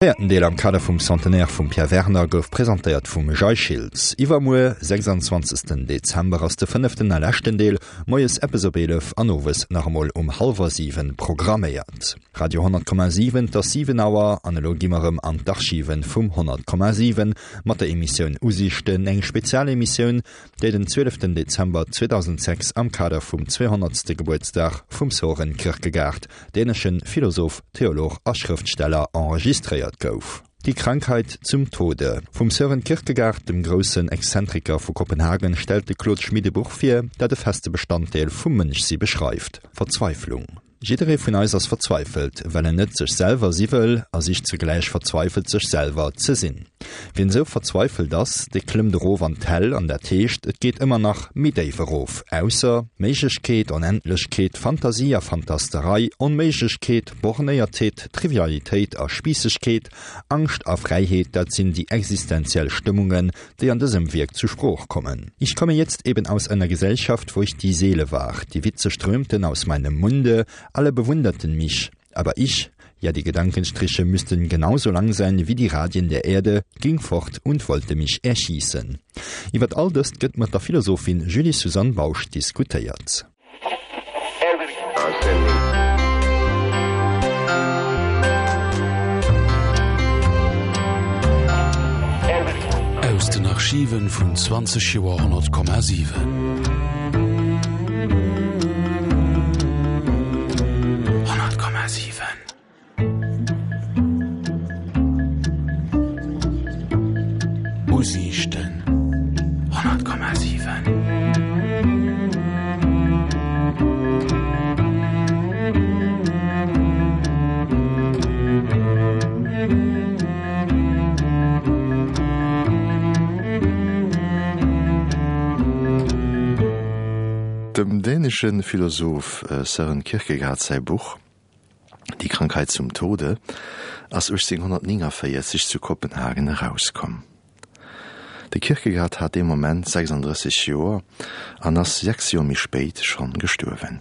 Véierten Deel am Kader vum Centenaire vum Pierre Werner gouf presentéiert vum Jay Schiltz. Iwwermuer, 26 Dezember, ass de fënneften a leschten Deel, moies eppes op 11 an owes nach emol um hallwer 7 programméiert. Radio 10,7 Et ass 7 Auer an elo gi mer erëm an d'Archiven vum 100,7 mat der Emissioun Usiichten, eng Spezialemissioun, déi den 12 Dezember 2006 am Kader vum 200. Gebuertsdag vum Soren Kierkegaard, däneschen Philosoph, Theolog a Schrëftsteller, enregistréiert gouf. Die Krankheit zum Tode vum Sören Kierkegaard, dem groussen Exzentriker vu Kopenhagen, stellt de Claude Schmit e Buch vir, dat e feste Bestanddeel vum Mënschsi beschreift, Verzweiflung. Jidderee vun eis ass verzweifelt, well en net sech selwer si wëll a sicht zugläich verzweifelt sech selwer ze sinn. Wien esou verzweifelt ass, dee klëmmt erof an d'Hell an dat heescht, et geet ëmmer nach méi déif erof, ausser Méiglechkeet, Onendlechkeet, Fantasie a Fantasterei, Onméiglechkeet, Bornéiertheet, Trivialitéit a Spiissegkeet, Angscht a Fräiheet, dat sinn déi existenziell Stëmmungen, déi an dësem Wierk zu Sprooch kommen. Ich komme jetzt eben aus einer Gesellschaft, wo ich die Seele war. Die Witze strömten aus meinem Munde, alle bewunderten mich. Aber ich, ja die Gedankenstriche müssten genauso lang sein wie die Radien der Erde, ging fort und wollte mich erschießen. Iwwer all dëst gëtt mat der Philosophin Julie-Suzanne Bausch diskutéiert. Aus den Archiven vun 20 Joer 100,7. Usiichten 100,7. Dem dänesche Philosoph Søren Kierkegaard säi Buch Die Krankheit zum Tode ass 1849 zu Kopenhagen erauskomm. De Kierkegaard hat dee Moment 36 Joer an ass 6 Joer méi spéit schonn gestuerwen.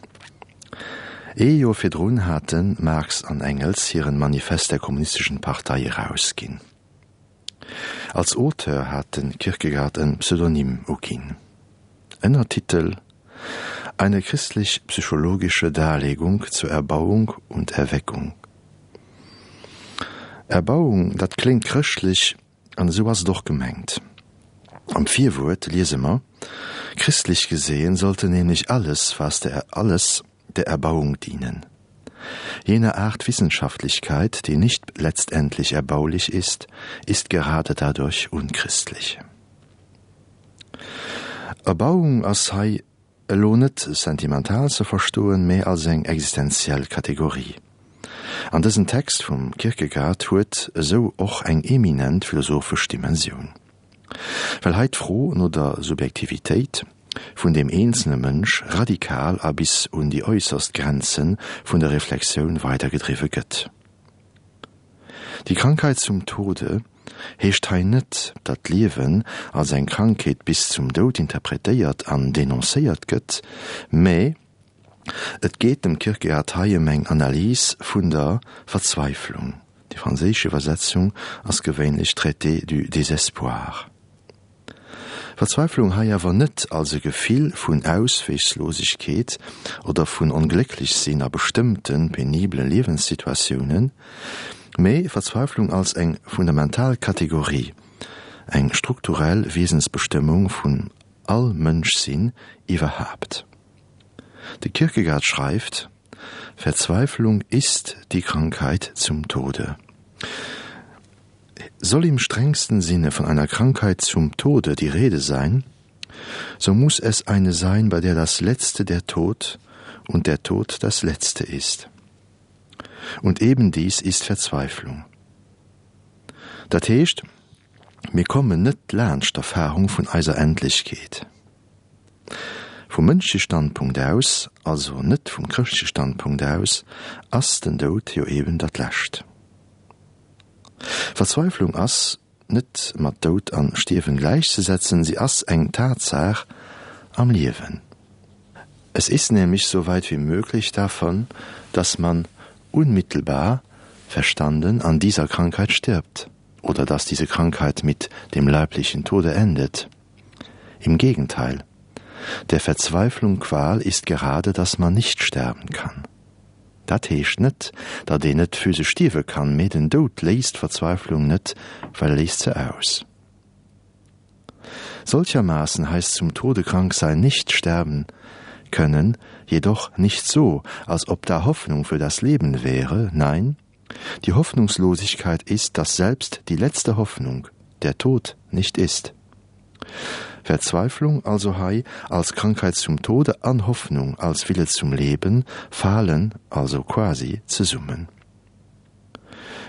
Ee Joer virdrun hate Marx an Engels hiren Manifest der Kommunistischen Partei erausginn. Als Auteur hat de Kierkegaard e Pseudonym uginn. Ënnertitel, Eine christlich-psychologische Darlegung zur Erbauung und Erweckung. Erbauung, dat kléngt chrëschtlech, an esou ass et och gemengt. Am Virwuert liese mer, Christlich gesehen sollte nämlich alles, was der alles der Erbauung dienen. Jene Art Wissenschaftlichkeit, die nicht letztendlich erbaulich ist, ist gerade dadurch unchristlich. Erbauung ass hei elo net sentimental ze verstoen, mä als eng existenziell Kategorie. An dësen Text vum Kierkegaard huet esou och eng eminent philosophesch Dimensioun. Well hei d'Fro no der Subjektivitéit vun deem eenzelne Mënsch radikal a bis un déi äusserst Grenze vun der Reflexioun weidergedriwwe gëtt. Die Krankheit zum Tode heescht hei net, datt d'Liewen als eng Krankheet bis zum Doud interpretéiert an denoncéiert gëtt, mä et geet dem Kierkegaard hei ëm eng Analys vun der Verzweiflung, déi franséisch Iwwersetzung ass gewéinlech Traité du désespoir. Verzweiflung hei awer net als e Gefill vun Ausweegslosegkeet oder vun Onglécklechsinn a bestëmmte penibele Liewenssituatiounen, mee Verzweiflung als eng fundamental Kategorie, eng strukturell Wiesensbestëmmung vun all Mënschsinn iwwerhaapt. De Kierkegaard schreift, Verzweiflung ist die Krankheit zum Tode. Soll im strengsten Sinne von einer Krankheit zum Tode die Rede sein, so muss es eine sein, bei der das Letzte der Tod und der Tod das Letzte ist. Und eben dies ist Verzweiflung. Dat heescht, mir kommen net laanscht d'Erfahrung vun eiser Endlechkeet. Vum mënschleche Standpunkt aus, also net vum chrëschtleche Standpunkt aus, ass den Doud jo eben dat Lescht. Verzweiflung ass net mat Doud an Stierwen gläichzesetzen, si ass eng Tatsaach am Liewen. Es ist nämlich so weit wie möglich davon, dass man unmittelbar. verstanden an dieser Krankheit stirbt oder dass diese Krankheit mit dem leiblichen Tode endet. Im Gegenteil. Der Verzweiflung Qual ist gerade, dass man nicht sterben kann. Dat heescht net, datt een net physesch stierwe kann, mee den Doud léist d'Verzweiflung net, well e léist se aus. Solchermaßen heißt zum Tode krank sein nicht sterben können, jedoch nicht so, als ob da Hoffnung für das Leben wäre, nein, die Hoffnungslosigkeit ist, dass selbst die letzte Hoffnung, der Tod, nicht ist. Verzweiflung also hei als Krankheit zum Tode an Hoffnung als Wille zum Leben falen also quasi zesummen.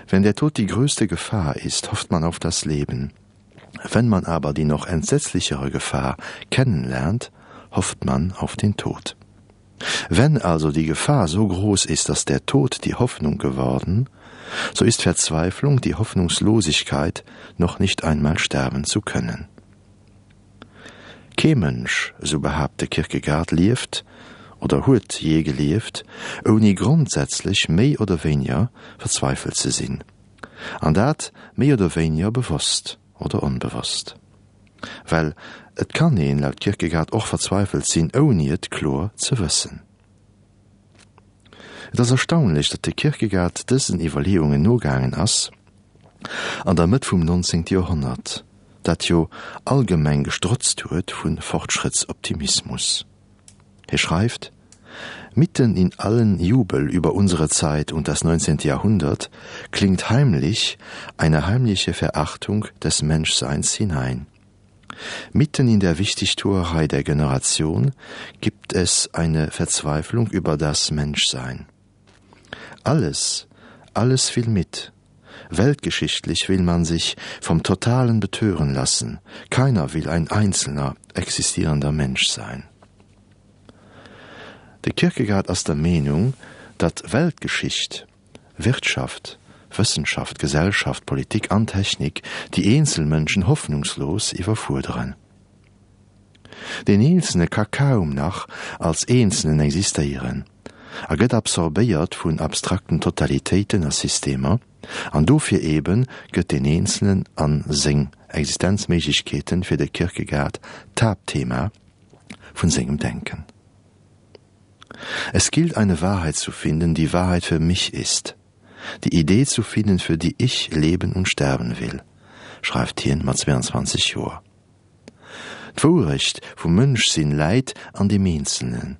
Wenn der Tod die größte Gefahr ist, hofft man auf das Leben. Wenn man aber die noch entsetzlichere Gefahr kennenlernt, hofft man auf den Tod. Wenn also die Gefahr so groß ist, dass der Tod die Hoffnung geworden, so ist Verzweiflung die Hoffnungslosigkeit, noch nicht einmal sterben zu können. Kee Mënsch, esou behaapt de Kierkegaard, lieft oder huet jee gelieft, ouni grondsätzlech méi oder wéiniger verzweifelt ze sinn. An dat méi oder wéiniger bewosst oder onbewosst. Well et kann een laut Kierkegaard och verzweifelt sinn, ouni et kloer ze wëssen. Et ass erstaunlech, datt de Kierkegaard dësen Iwwerleeungen nogaangen ass an der Mëtt vum 19. Joerhonnert, dat jo allgemeng gestrotzt huet vu Fortschrëttsoptimismus. Hie schreift, Mitten in allen Jubel über unsere Zeit und das 19. Jahrhundert klingt heimlich eine heimliche Verachtung des Menschseins hinein. Mitten in der Wichtigtuerei der Generation gibt es eine Verzweiflung über das Menschsein. Alles, alles will mit. Weltgeschichtlich will man sich vom Totalen betören lassen. Keiner will ein einzelner, existierender Mensch sein. De Kierkegaard ass der Meenung, datt Weltgeschicht, Wirtschaft, Wëssenschaft, Gesellschaft, Politik an Technik déi eenzel Mënschen hoffnungslos iwwerfuerderen. Deen Eenzelne ka kaum nach als Eenzelnen existéieren a gëtt absorbéiert vun abstrakten Totalitéiten a Systemer, an dofir eebe gëtt deen Eenzelnen a seng Existenzméiglechkeeten fir de Kierkegaard d'Haaptthema vun sengem Denken. Es gilt eine Wahrheit zu finden, die Wahrheit für mich ist, die Idee zu finden, für die ich leben und sterben will, schreift hien mat 22 Joer. D'Wourecht vum Mënschsinn läit an deem Eenzelnen.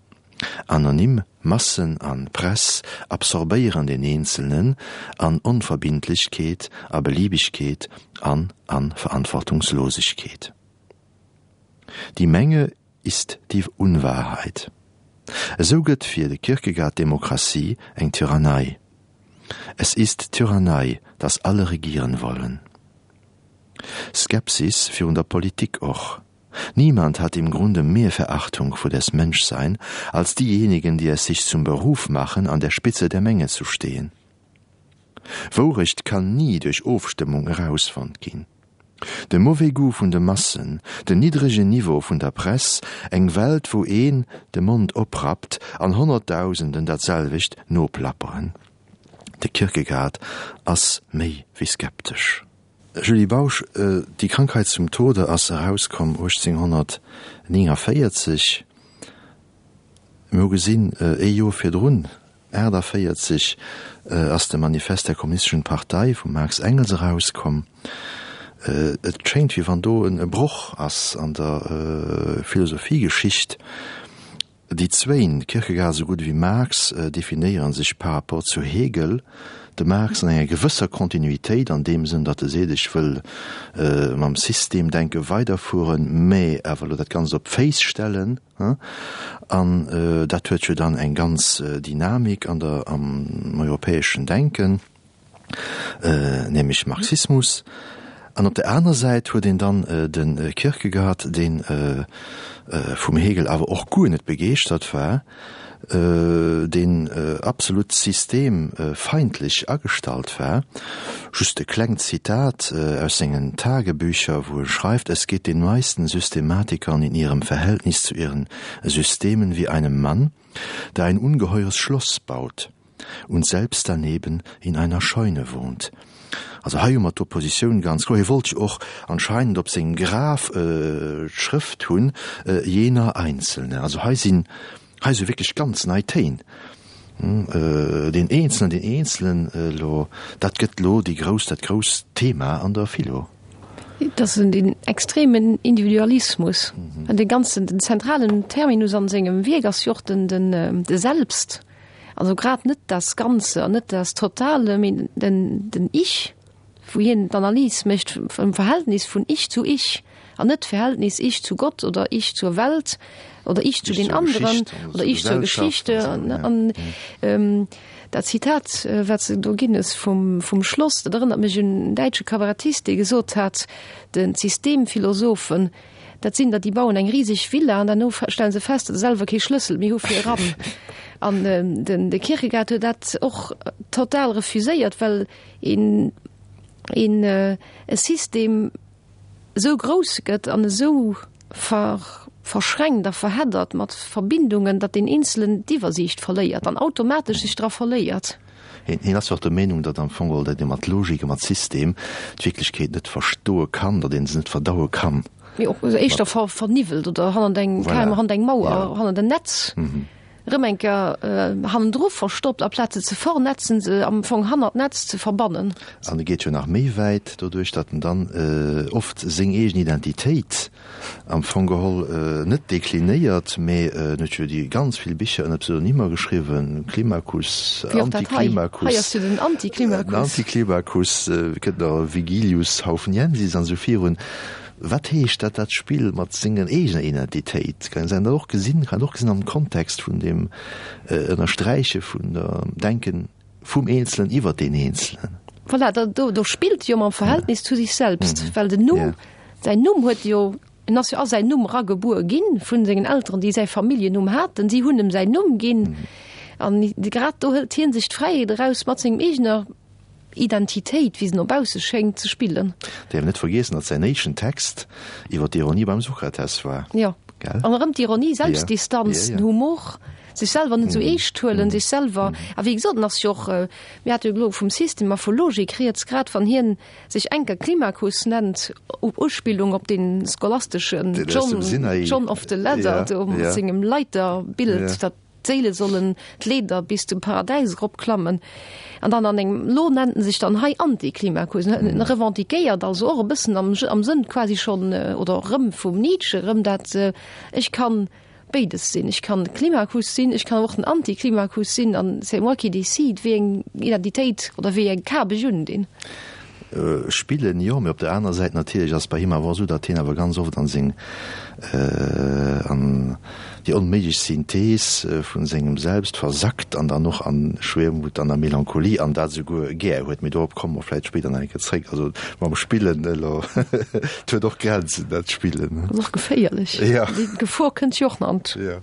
Anonym Massen an Press absorbéieren den Eenzelnen an Onverbindlechkeet, a Beliebigkeet an an Verantwortungslosigkeet. Die Menge ist die Unwahrheit. Esou gëtt fir de Kierkegaard d'Demokratie eng Tyrannei. Es ist Tyrannei, dass alle regieren wollen. Skepsis virun der Politik och. Niemand hat im Grunde mehr Verachtung vor des Menschsein als diejenigen, die es sich zum Beruf machen, an der Spitze der Menge zu stehen. Wourecht kann ni duerch Ofstëmmung erausfonnt ginn. De mauvais goût vun de Massen, den niddregen Niveau vun der Press, eng Welt wou een de Mond oprappt an Honnertdausenden dat selwecht noplapperen. De Kierkegaard ass méi wéi skeptesch. Julie Bausch, Die Krankheit zum Tode ass erauskomm 1849. Mir hu gesinn, ee Joer virdrun, 48, ass de Manifest der Kommunistischen Partei vum Marx Engels erauskomm. Et schéngt, wéi wann do e Broch ass an der Philosophiegeschicht. Déi zwéin, Kierkegaard esou gutt ewéi Marx, definéiere sech par rapport zu Hegel, de Marx an enger gewësser Kontinuitéit, an deem Sënn, datt e seet, ech wëll mam Systemdenke weiderfueren, mä awer elo dat Ganzt op d'Féiss stellen. An dat huet jo dann eng ganz Dynamik an der, am europäeschen Denken. nämlech Marxismus, an op der aner Säit huet een dann de Kierkegaard, dee vum Hegel awer och guer net begeeschtert war, deen absolut systemfeindlech agestallt war. Just e klengt Zitat aus sengen Tagebücher, wou e schreift, Es geht den meisten Systematikern in ihrem Verhältnis zu ihren Systemen wie einem Mann, der ein ungeheures Schloss baut. Und selbst daneben in einer Scheune wohnt. Also hei hu mer d'Oppositioun ganz kloer. Hie wollt jo och anscheinend op sengem Graf d'Schrëft hunn, jener Einzelne. Also hei sinn, hei si wierklech ganz nei Téin. Deen Eenzelen, deen Eenzelen elo, dat gëtt elo déi grouss, dat grousst Thema an der Philo. Et ass den extremen Individualismus. An dee ganzen, den zentralen Terminus an sengem Wierk ass jo och den, den, de Selbst. Also grad net das Ganze an net das Totale, mee den, den Ich, wou hien d'Analys mécht vum Verhältnis vun Ich zu Ich an net d'Verhältnis Ich zu Gott oder Ich zur Welt oder Ich zu den anderen oder Ich zur Geschichte. An dat Zitat, wat s de do ginn hues vum, vum Schloss, dat erënnert mech un en däitsche Kabarettist, dee gesot hat, den d'Systemphilosophen, Dat sinn der, déi bauen eng riseg Villa an derno stelle se fest, datt se selwer kee Schlëssel méi hu fir eran. An den de Kierkegaard huet dat och total refuséiert, well een een e System esou grouss gëtt an esou ver verschränkt a verheddert mat Verbindungen, datt deen Eenzelen d'Iwwersiicht verléiert an automatesch sech dra verléiert. Hien ass jo och der Meenung, datt am Fong geholl, datt ee mat Logik a mat System d'Wierklechkeet net verstoe kann, datt ee se net verdaue kann. Mee och éischter verniwwelt oder hannert eng, voilà, hannert eng Mauer, hannert en Netz erëm eng Kéier hannendru verstoppt, aplaz se ze vernetzen, se am Fong hannert d'Netz ze verbannen. An e geet jo nach méi wäit, doduerch datt en dann oft seng eegen Identitéit Am Fong geholl net deklinéiert, mee en huet jo déi ganz vill Bicher ënner Pseudonymer geschriwwen, Climacus, Anticlimacus, Hei ass jo den Anticlimacus. Den Anticlimacus, kënnt nach Vigilius Haufniensis an esou virun. Wat heescht dat, dat Spill mat senger eegener Identitéit? Kann een dat och gesinn, kann een och gesinn am Kontext vun deem Ënnersträiche vun der Denken Vum Eenzelen iwwer deen Eenzelen. Voilà, da, do, do spillt jo mam Verhältnis zu sich selbst, well den Numm, säin Numm huet jo, en ass jo a säin Numm eragebuer ginn vun sengen Elteren, déi säi Familljennumm haten, si hunn em säin Numm ginn. An grad do hëlt hien sech d'Fräiheet eraus, mat sengem eegener Identitéit, wéi se no bausse schéngt, ze spillen. Däerf net vergiessen, datt säin éischten Text iwwer d'Ironie beim Sokrates war. Jo, an erëm d'Ironie, Selbstdistanz, den Humor. Sech selwer net esou eescht huelen, sech selwer, a wéi gesot, en ass jo och, mir hate jo elo vum System a vu Logik rieds, grad wann hien sech enker Climacus nennt, op Uspillung op dee scholasteschen John, John of the Ladder do mat sengem Leiterbild, datt d'Séile sollen d'Leeder bis zum Paradäis eropklammen, an dann an engem, elo nennt en sech dann hei Anticlimacus, en revendiquéiert also och e bëssen am Sënn quasi schonn, oder erëm vum Nietzsche erëm dat, ech kann béides sinn. Ech kann Climacus sinn, ech kann awer och den Anti-Climacus sinn an c'est moi qui décide, wéi eng Identitéit oder wéi eng Kap ech undinn. Spillen, jo, mee op der anerer Säit natierlech ass bei him awer och esou, datt hien awer ganz oft an seng, an déi onméiglech Synthees vu sengem Selbst versackt an dann och an Schwermut an a Melancholie an dat esouguer gär huet. Mee dorop komme mer vläicht spéider nach eng Kéier zréck. Also mam Spillen elo, et huet och Grenzen, dat Spillen. Ass och geféierlech. Ja. Déi Gefor kënnt jo och nach an. Ja.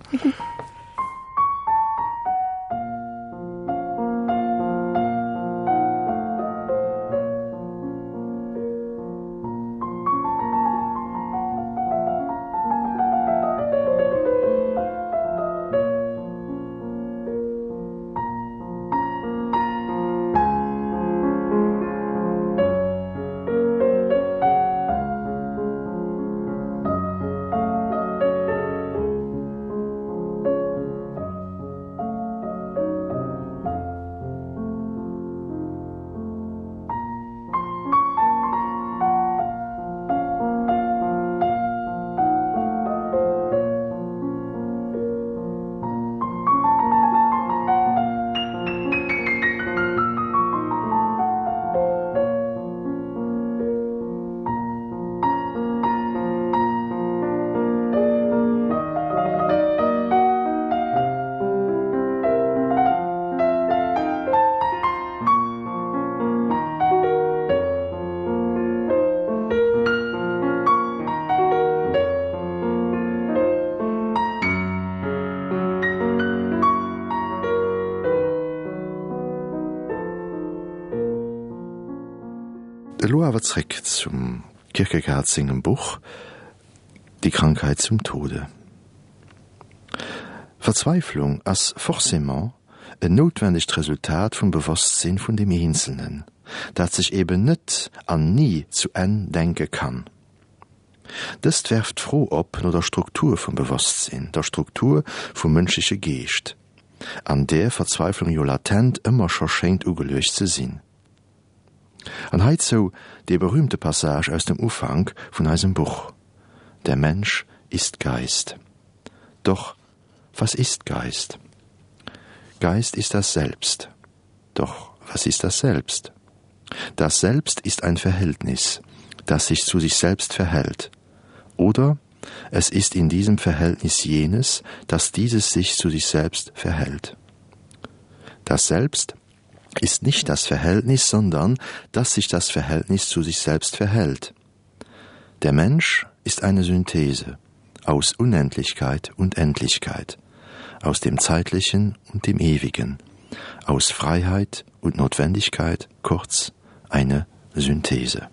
Elo awer zréck zum Kierkegaard sengem Buch Die Krankheit zum Tode. Verzweiflung ass forcément. en noutwendegt Resultat vum Bewosstsinn vun dem Eenzelnen, dat sech eben net an ni zu Enn denke kann. Dëst werft d'Fro op no der Struktur vum Bewosstsinn, der Struktur vum mënschleche Geescht, an där Verzweiflung jo latent ëmmer scho schéngt ugeluecht ze sinn. An heizou dee berühmte Passage aus dem Ufank vun eisem Buch, Der Mensch ist Geist. Doch was ist Geist? Geist ist das Selbst. Doch was ist das Selbst? Das Selbst ist ein Verhältnis, das sich zu sich selbst verhält. Oder es ist in diesem Verhältnis jenes, dass dieses sich zu sich selbst verhält. Das Selbst ist nicht das Verhältnis, sondern dass sich das Verhältnis zu sich selbst verhält. Der Mensch ist eine Synthese aus Unendlichkeit und Endlichkeit, aus dem Zeitlichen und dem Ewigen, aus Freiheit und Notwendigkeit, kurz eine Synthese.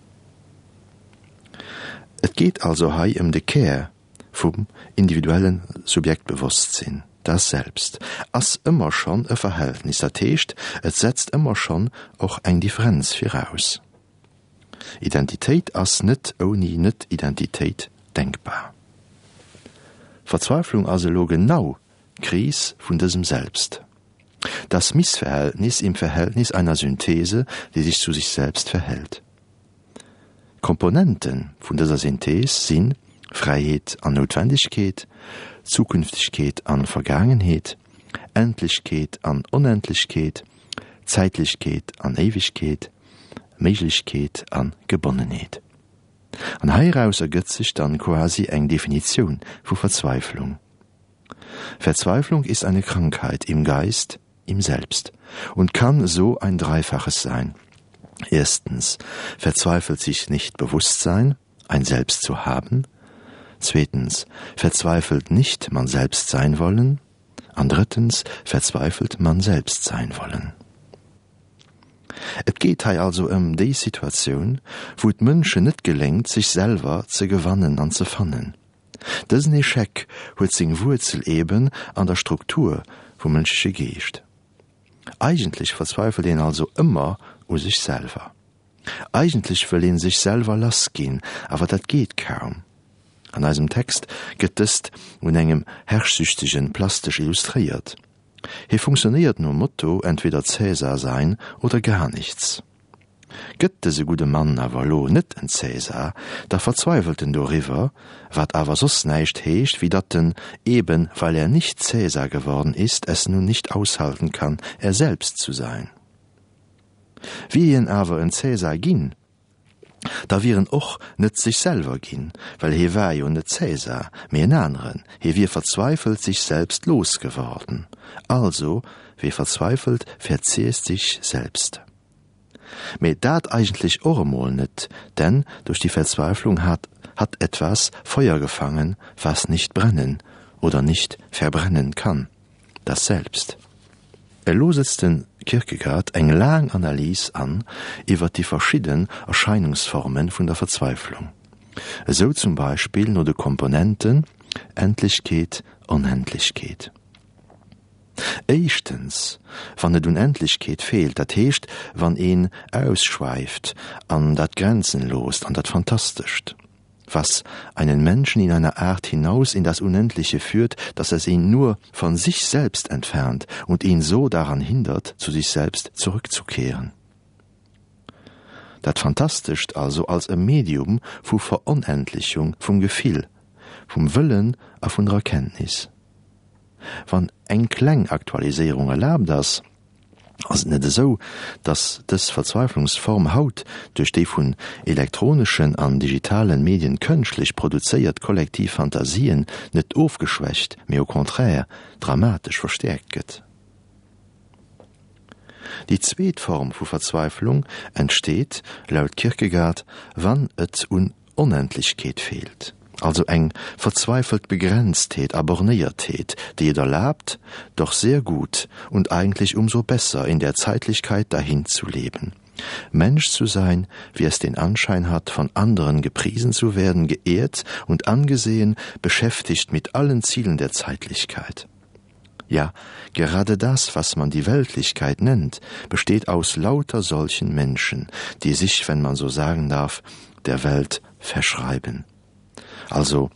Et geet also hei ëm de Kär vum individuelle Subjektbewosstsinn, Das Selbst ass ëmmer schonn e Verhältnis, dat heescht, et setzt ëmmer schonn och eng Differenz viraus. Identitéit ass net ouni Net-Identitéit denkbar. Verzweiflung ass elo genau d'Kris vun dësem Selbst. Das Missverhältnis im Verhältnis einer Synthese, die sich zu sich selbst verhält. D'Komponente vun dëser Synthees si Fräiheet an Noutwendegkeet, Zukünftegkeet an Vergaangenheet, Endlechkeet an Onendlechkeet, Zäitlechkeet an Éiwegkeet, Méiglechkeet an Gebonnenheet. An heiraus ergëtt sech dann quasi eng Definitioun vu Verzweiflung. Verzweiflung ist eine Krankheit im Geist, im Selbst und kann so ein Dreifaches sein. Erstens verzweifelt sich nicht Bewusstsein, ein Selbst zu haben. Zweitens verzweifelt nicht man selbst sein wollen. An drittens verzweifelt man selbst sein wollen. Et geet hei also ëm déi Situatioun, wou et Mënschen net geléngt, sech selwer ze gewannen an ze fannen. Dësen Echec huet seng Wuerzel eben an der Struktur vum mënschleche Geescht. Eigentlech verzweifelt een also ëmmer u sech selwer. Eigentlech wëll een sech selwer lass ginn, awer dat geet kaum. An eisem Text gëtt dëst un engem Herrschsüchtegen plastesch illustréiert. Hie funktionéiert nom Motto entweder Cäsar sein oder gar nichts. Gëtt dëse gudde Mann awer elo net en Cäsar, da verzweiwelt en doriwwer, wat awer soss näischt heescht, wéi datt en, eben weil er nicht Cäsar geworden ist, es nun nicht aushalten kann, er selbst zu sein. Wier hien awer en Cäsar ginn, da wier en och net sech selwer ginn, well hie war jo net Cäsar, mee en aneren, hie wier verzweifelt sich selbst losgeworden. Also, wer verzweifelt, verzehrt sich selbst. Mee dat eigentlech och emol net, denn durch die Verzweiflung hat hat etwas Feuer gefangen, was nicht brennen oder nicht verbrennen kann, das Selbst. Elo setzt de Kierkegaard eng laang Analys an iwwer déi verschidden Erscheinungsforme vun der Verzweiflung, esou zum Beispill no de Komponenten Endlechkeet, Onendlechkeet. Éischtens, wann et un Endlechkeet feelt, dat heescht, wann een ausschwäift an dat Grenzenloost, an dat Fantastescht, was einen Menschen in einer Art hinaus in das Unendliche führt, dass es ihn nur von sich selbst entfernt und ihn so daran hindert, zu sich selbst zurückzukehren. Dat Fantastescht also als e Medium vu Veronendlechung vum Gefill, vum Wëllen a vun der Erkenntnis. Wann eng kleng Aktualiséierung erlaabt ass, ass et net esou, datt dës Verzweiflungsform haut duerch déi vun elektroneschen an digitalen Medien kënschtlech produzéiert kollektiv Fantasien net ofgeschwächt, mee au contraire dramatesch verstäerkt gëtt. Déi zweet Form vu Verzweiflung entsteet, laut Kierkegaard, wann et un Onendlechkeet feelt, also eng verzweifelt Begrenztheet a Bornéiertheet, déi et erlaabt, doch sehr gut und eigentlich umso besser in der Zeitlichkeit dahin zu leben. Mensch zu sein, wie es den Anschein hat, von anderen gepriesen zu werden, geehrt und angesehen, beschäftigt mit allen Zielen der Zeitlichkeit. Ja, gerade das, was man die Weltlichkeit nennt, besteht aus lauter solchen Menschen, die sich, wenn man so sagen darf, der Welt verschreiben. Also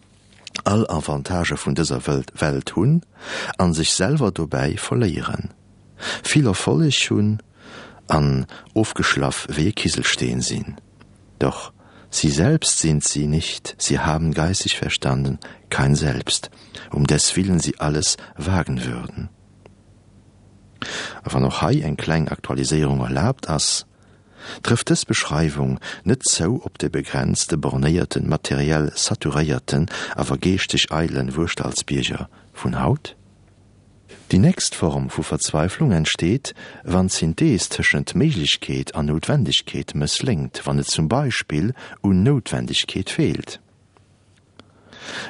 all Avantagë vun dëser Welt hunn an sech selwer dobäi verléieren, vill Erfolleg hunn an ofgeschlaff wéi e Kiselsteen sinn. Doch sie selbst sind sie nicht, sie haben geistig verstanden kein Selbst, um deswillen sie alles wagen würden. A wann och hei eng kleng Aktualiséierung erlaabt ass, Trëfft dës Beschreiwung net zou op de begrenzte, bornéierten, materiell saturéierten, awer geeschteg eidelen Wuerschtalsbierger vun haut? Déi nächst Form vu Verzweiflung entsteet, wann d'Synthees tëschent Méiglechkeet an Noutwendegkeet mëssléngt, wann et zum Beispill un Noutwendegkeet feelt.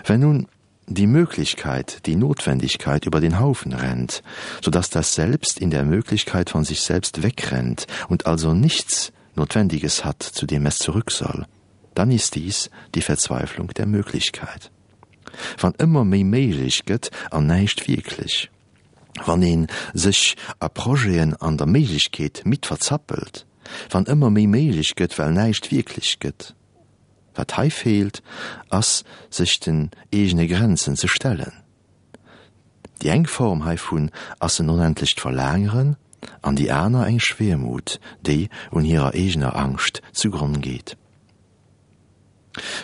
Wenn nun die Möglichkeit, die Notwendigkeit über den Haufen rennt, so dass das Selbst in der Möglichkeit von sich selbst wegrennt und also nichts Notwendiges hat, zu dem es zurück soll, dann ist dies die Verzweiflung der Möglichkeit. Wann ëmmer méi méiglech gëtt an näischt wierklech. Wann ee sech a Projeten an der Méiglechkeet midd verzappelt. Wann ëmmer méi méiglech gëtt, well näischt wierklech gëtt. Wat hei feelt, ass sech den eegene Grenzen ze stellen. Déi eng Form heivun ass en onendlecht Verlaangeren an déi aner eng Schwermut, déi un hirer eegener Angscht zu Gronn geet.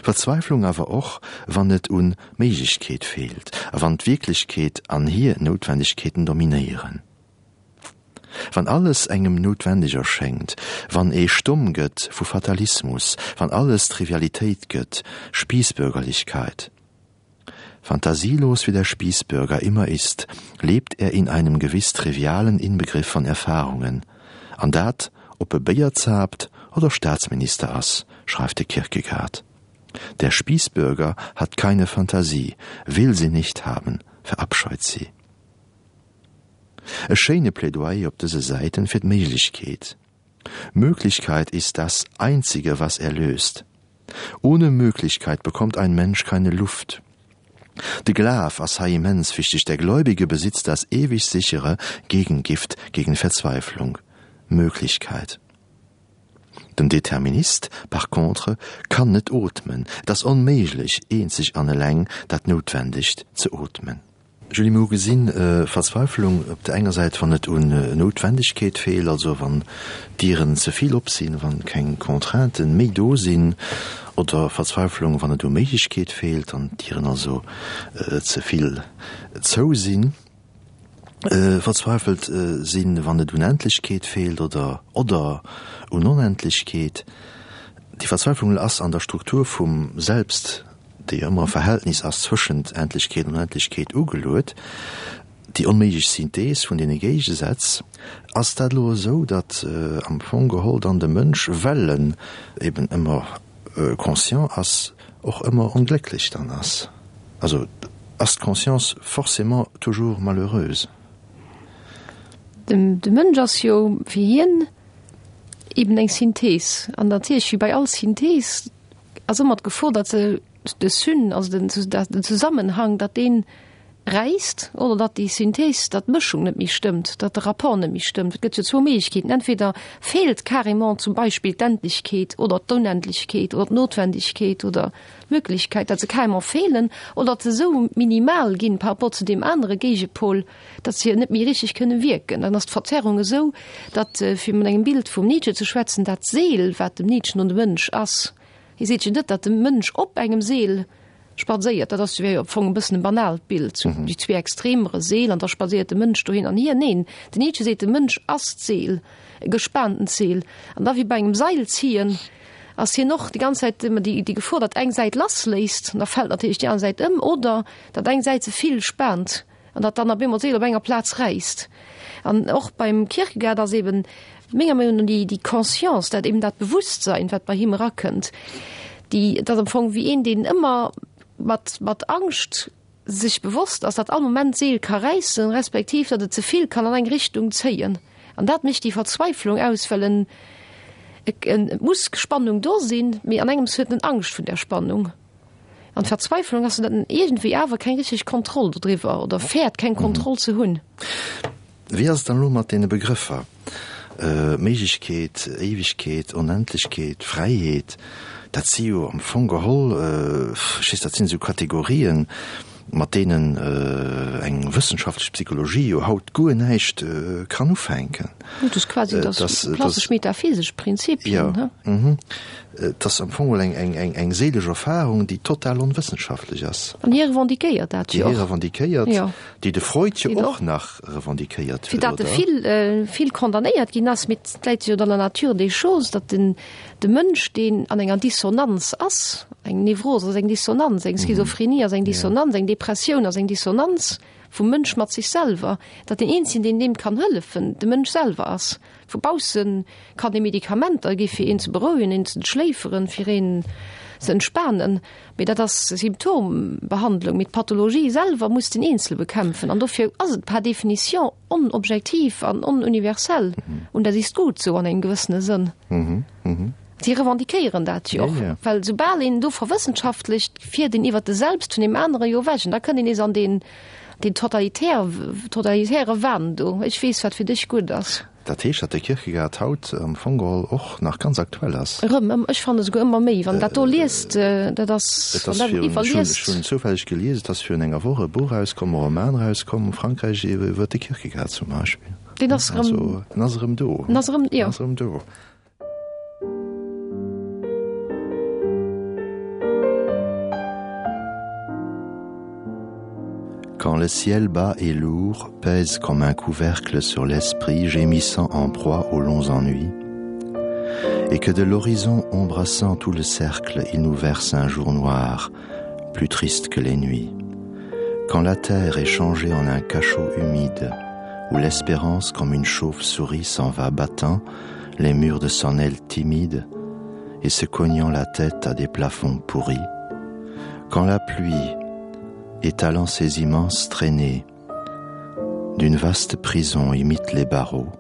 Verzweiflung awer och, wann et un Méiglechkeet feelt a wann d'Wierklechkeet an hir Noutwendegkeeten dominéieren. Wann alles engem noutwendeg erschéngt, wann ee stomm gëtt vu Fatalismus, wann alles Trivialitéit gëtt, Spießbürgerlichkeit. Fantasielos wie der Spießbürger immer ist, lebt er in einem gewiss trivialen Inbegriff von Erfahrungen. An dat, ob e Béier zaapt oder Staatsminister ass, schreift de Kierkegaard. Der Spießbürger hat keine Fantasie, will sie nicht haben, verabscheut sie. E schéine Plädoyer op dëse Säiten fir d'Méiglechkeet. Möglichkeit ist das einzige, was erlöst. Ohne Möglichkeit bekommt ein Mensch keine Luft. De Glaf ass hei immens wichteg, Der Gläubige besitzt das ewig sichere Gegengift gegen Verzweiflung, Möglichkeit. Den Determinist par contre kann net ootmen, et ass onméiglech, eenzeg an eleng dat Noutwendegt ze ootmen. Julie, Mir hu gesinn, Verzweifelung op der enger Säit, wann et un Noutwendegkeet feelt, also wann d'Dieren ze vill op sinn, wann keng Contrainten méi do sinn, oder Verzweifelung, wann et u Méiglechkeet feelt an d'Dieren also ze vill zou sinn. Verzweifelt sinn, wann et un Endlechkeet feelt oder oder un Onendlechkeet. Déi Verzweiflung ass an der Struktur vum Selbst déi ëmmer e Verhältnis ass zwëschent Endlechkeet an Onendlechkeet ugeluet, déi onméiglech Synthees vun deene Géigesätz. Ass dat elo esou, datt am Fong geholl dann de Mënsch, well en eben ëmmer conscient ass, och ëmmer onglécklech dann ass? Also ass d'Conscience forcément toujours malheureuse? De Mënsch ass jo fir hien eben eng Synthees. An natierlech, wéi bei all Synthees, ass ëmmer d'Gefor, datt se de Syn, also den, den Zusammenhang, datt dee räisst oder datt déi Synthees, datt d'Mëschung net méi stëmmt, datt de Rapport net méi stëmmt. Et gëtt jo zwou Méiglechkeeten, entweder feelt carrément zum Beispill d'Endlechkeet oder d'Onendlechkeet oder d'Notwendegkeet oder d'Möglichkeit, datt se carrément feelen oder datt se esou minimal ginn par rapport zu deem anere Géigepol, datt se net méi richteg kënne wierken. Dann ass d'Verzerrung esou, datt, fir mat engem Bild vum Nietzsche ze schwätzen, dat Seel, wat dem Nietzsche no de Mënsch ass, hie seet jo net, datt de Mënsch op engem Seel spadséiert, dat ass wär jo am Fong e bëssen e banaalt Bild, sou déi zwee Extremere, Seel an da spadséiert de Mënsch dohin an hier. Neen, den Nietzsche seet, de Mënsch ass d'Seel, e gespaantent Seel. An da wéi bei engem Seilziehen ass hien och déi ganz Zäit ëmmer déi Gefor, datt eng Säit lassléisst, an da fält natierlech déi aner Säit ëm, oder datt eng Säit ze vill spaant. an datt dann op eemol d'Seel op enger Plaz räisst. An och beim Kierkegaard ass eben menger Meinung no déi, déi Conscience, dat eben dat Bewusstsein, wat bei him erakënnt, déi, dat am Fong wéi een, deen ëmmer mat, mat Angscht sech bewosst ass, datt all Moment d'Seel ka räissen, respektiv datt et ze vill kann an eng Richtung zéien. An dat mécht déi Verzweiflung aus, well en, et muss Spannung do sinn, mee an engems huet en Angscht vun där Spannung. An d'Verzweiflung ass, datt en iergendwéi awer keng richteg Kontroll dodriwwer oder fäert keng Kontroll ze hunn. Wéi ass et dann elo mat deene Begrëffer Méiglechkeet, Éiwegkeet, Onendlechkeet, Fräiheet? Dat si jo am Fong geholl, ech weess, dat sinn esou Kategorien, mat deenen eng wëssenschaftlech Psychologie jo haut guer näischt kann ufänken. Dat ass quasi dat klassesch metaphysesch Prinzipien. Jo, mhm. Et ass am Fong geholl eng séilesch Erfahrung, déi total onwëssenschaftlech ass. An hie revendiquéiert dat jo och. Déi hie revendiquéiert. Déi de Freud jo och nach revendiquéiert huet, oder? Fir datt e vill, vill condamnéiert ginn ass, mee et läit jo an der Nature des choses, datt den, de Mënsch, deen an enger Dissonanz ass, eng Nevros ass eng Dissonanz, eng Schizophrenie ass eng Dissonanz, eng Depressioun ass eng Dissonanz vum Mënsch mat sech selwer, datt deen eenzegen, deen deem kann hëllefen, de Mënsch selwer ass. Vu bausse kann ee Medikamenter gi fir een ze berouegen, een ze schléiferen, fir een ze entspanen. Mee dat ass Symptombehandlung. Mee d'Pathologie selwer muss den Eenzele bekämpfen. An dofir ass et par définition onobjektiv an onuniversell. Und das ist gut so an engem gewëssene Sënn. Si revendiquéieren dat jo och, well soubal een do verwëssenschaftlecht, fiert een iwwert de Selbst vun deem anere jo ewech. An da kënnt een nees an deen, deen totalitär, totalitäre Wahn do, Ech weess, wat fir dech gutt ass. Dat heescht, datt de Kierkegaard haut am Fong geholl och nach ganz aktuell ass. Erëm, ech fannen esouguer ëmmer méi, wann dat do liest, dat ass, wann dat iwwerliest. Ech hunn zoufälleg gelies, et ass virun enger Woch e Buch erauskomm, e Roman erauskomm, Frankräich iwwer de Kierkegaard zum Beispill. Deen ass erëm. Also, en ass erëm do. En ass erëm, jo. En ass erëm do. Quand le ciel bas et lourd pèse comme un couvercle sur l'esprit gémissant en proie aux longs ennuis, et que de l'horizon embrassant tout le cercle, il nous verse un jour noir, plus triste que les nuits. Quand la terre est changée en un cachot humide, où l'espérance comme une chauve-souris s'en va battant les murs de son aile timide et se cognant la tête à des plafonds pourris, quand la pluie, étalant ses immenses traînées, d'une vaste prison imite les barreaux,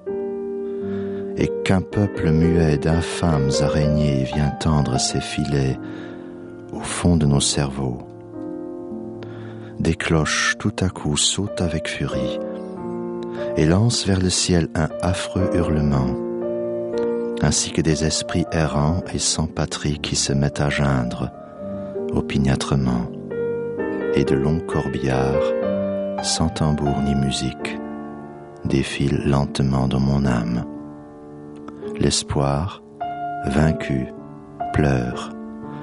et qu'un peuple muet d'infâmes araignées vient tendre ses filets au fond de nos cerveaux. Des cloches tout à coup sautent avec furie et lancent vers le ciel un affreux hurlement, ainsi que des esprits errants et sans patrie qui se mettent à geindre opiniâtrement et de longs corbillards, sans tambour ni musique, défilent lentement dans mon âme. L'espoir, vaincu, pleure,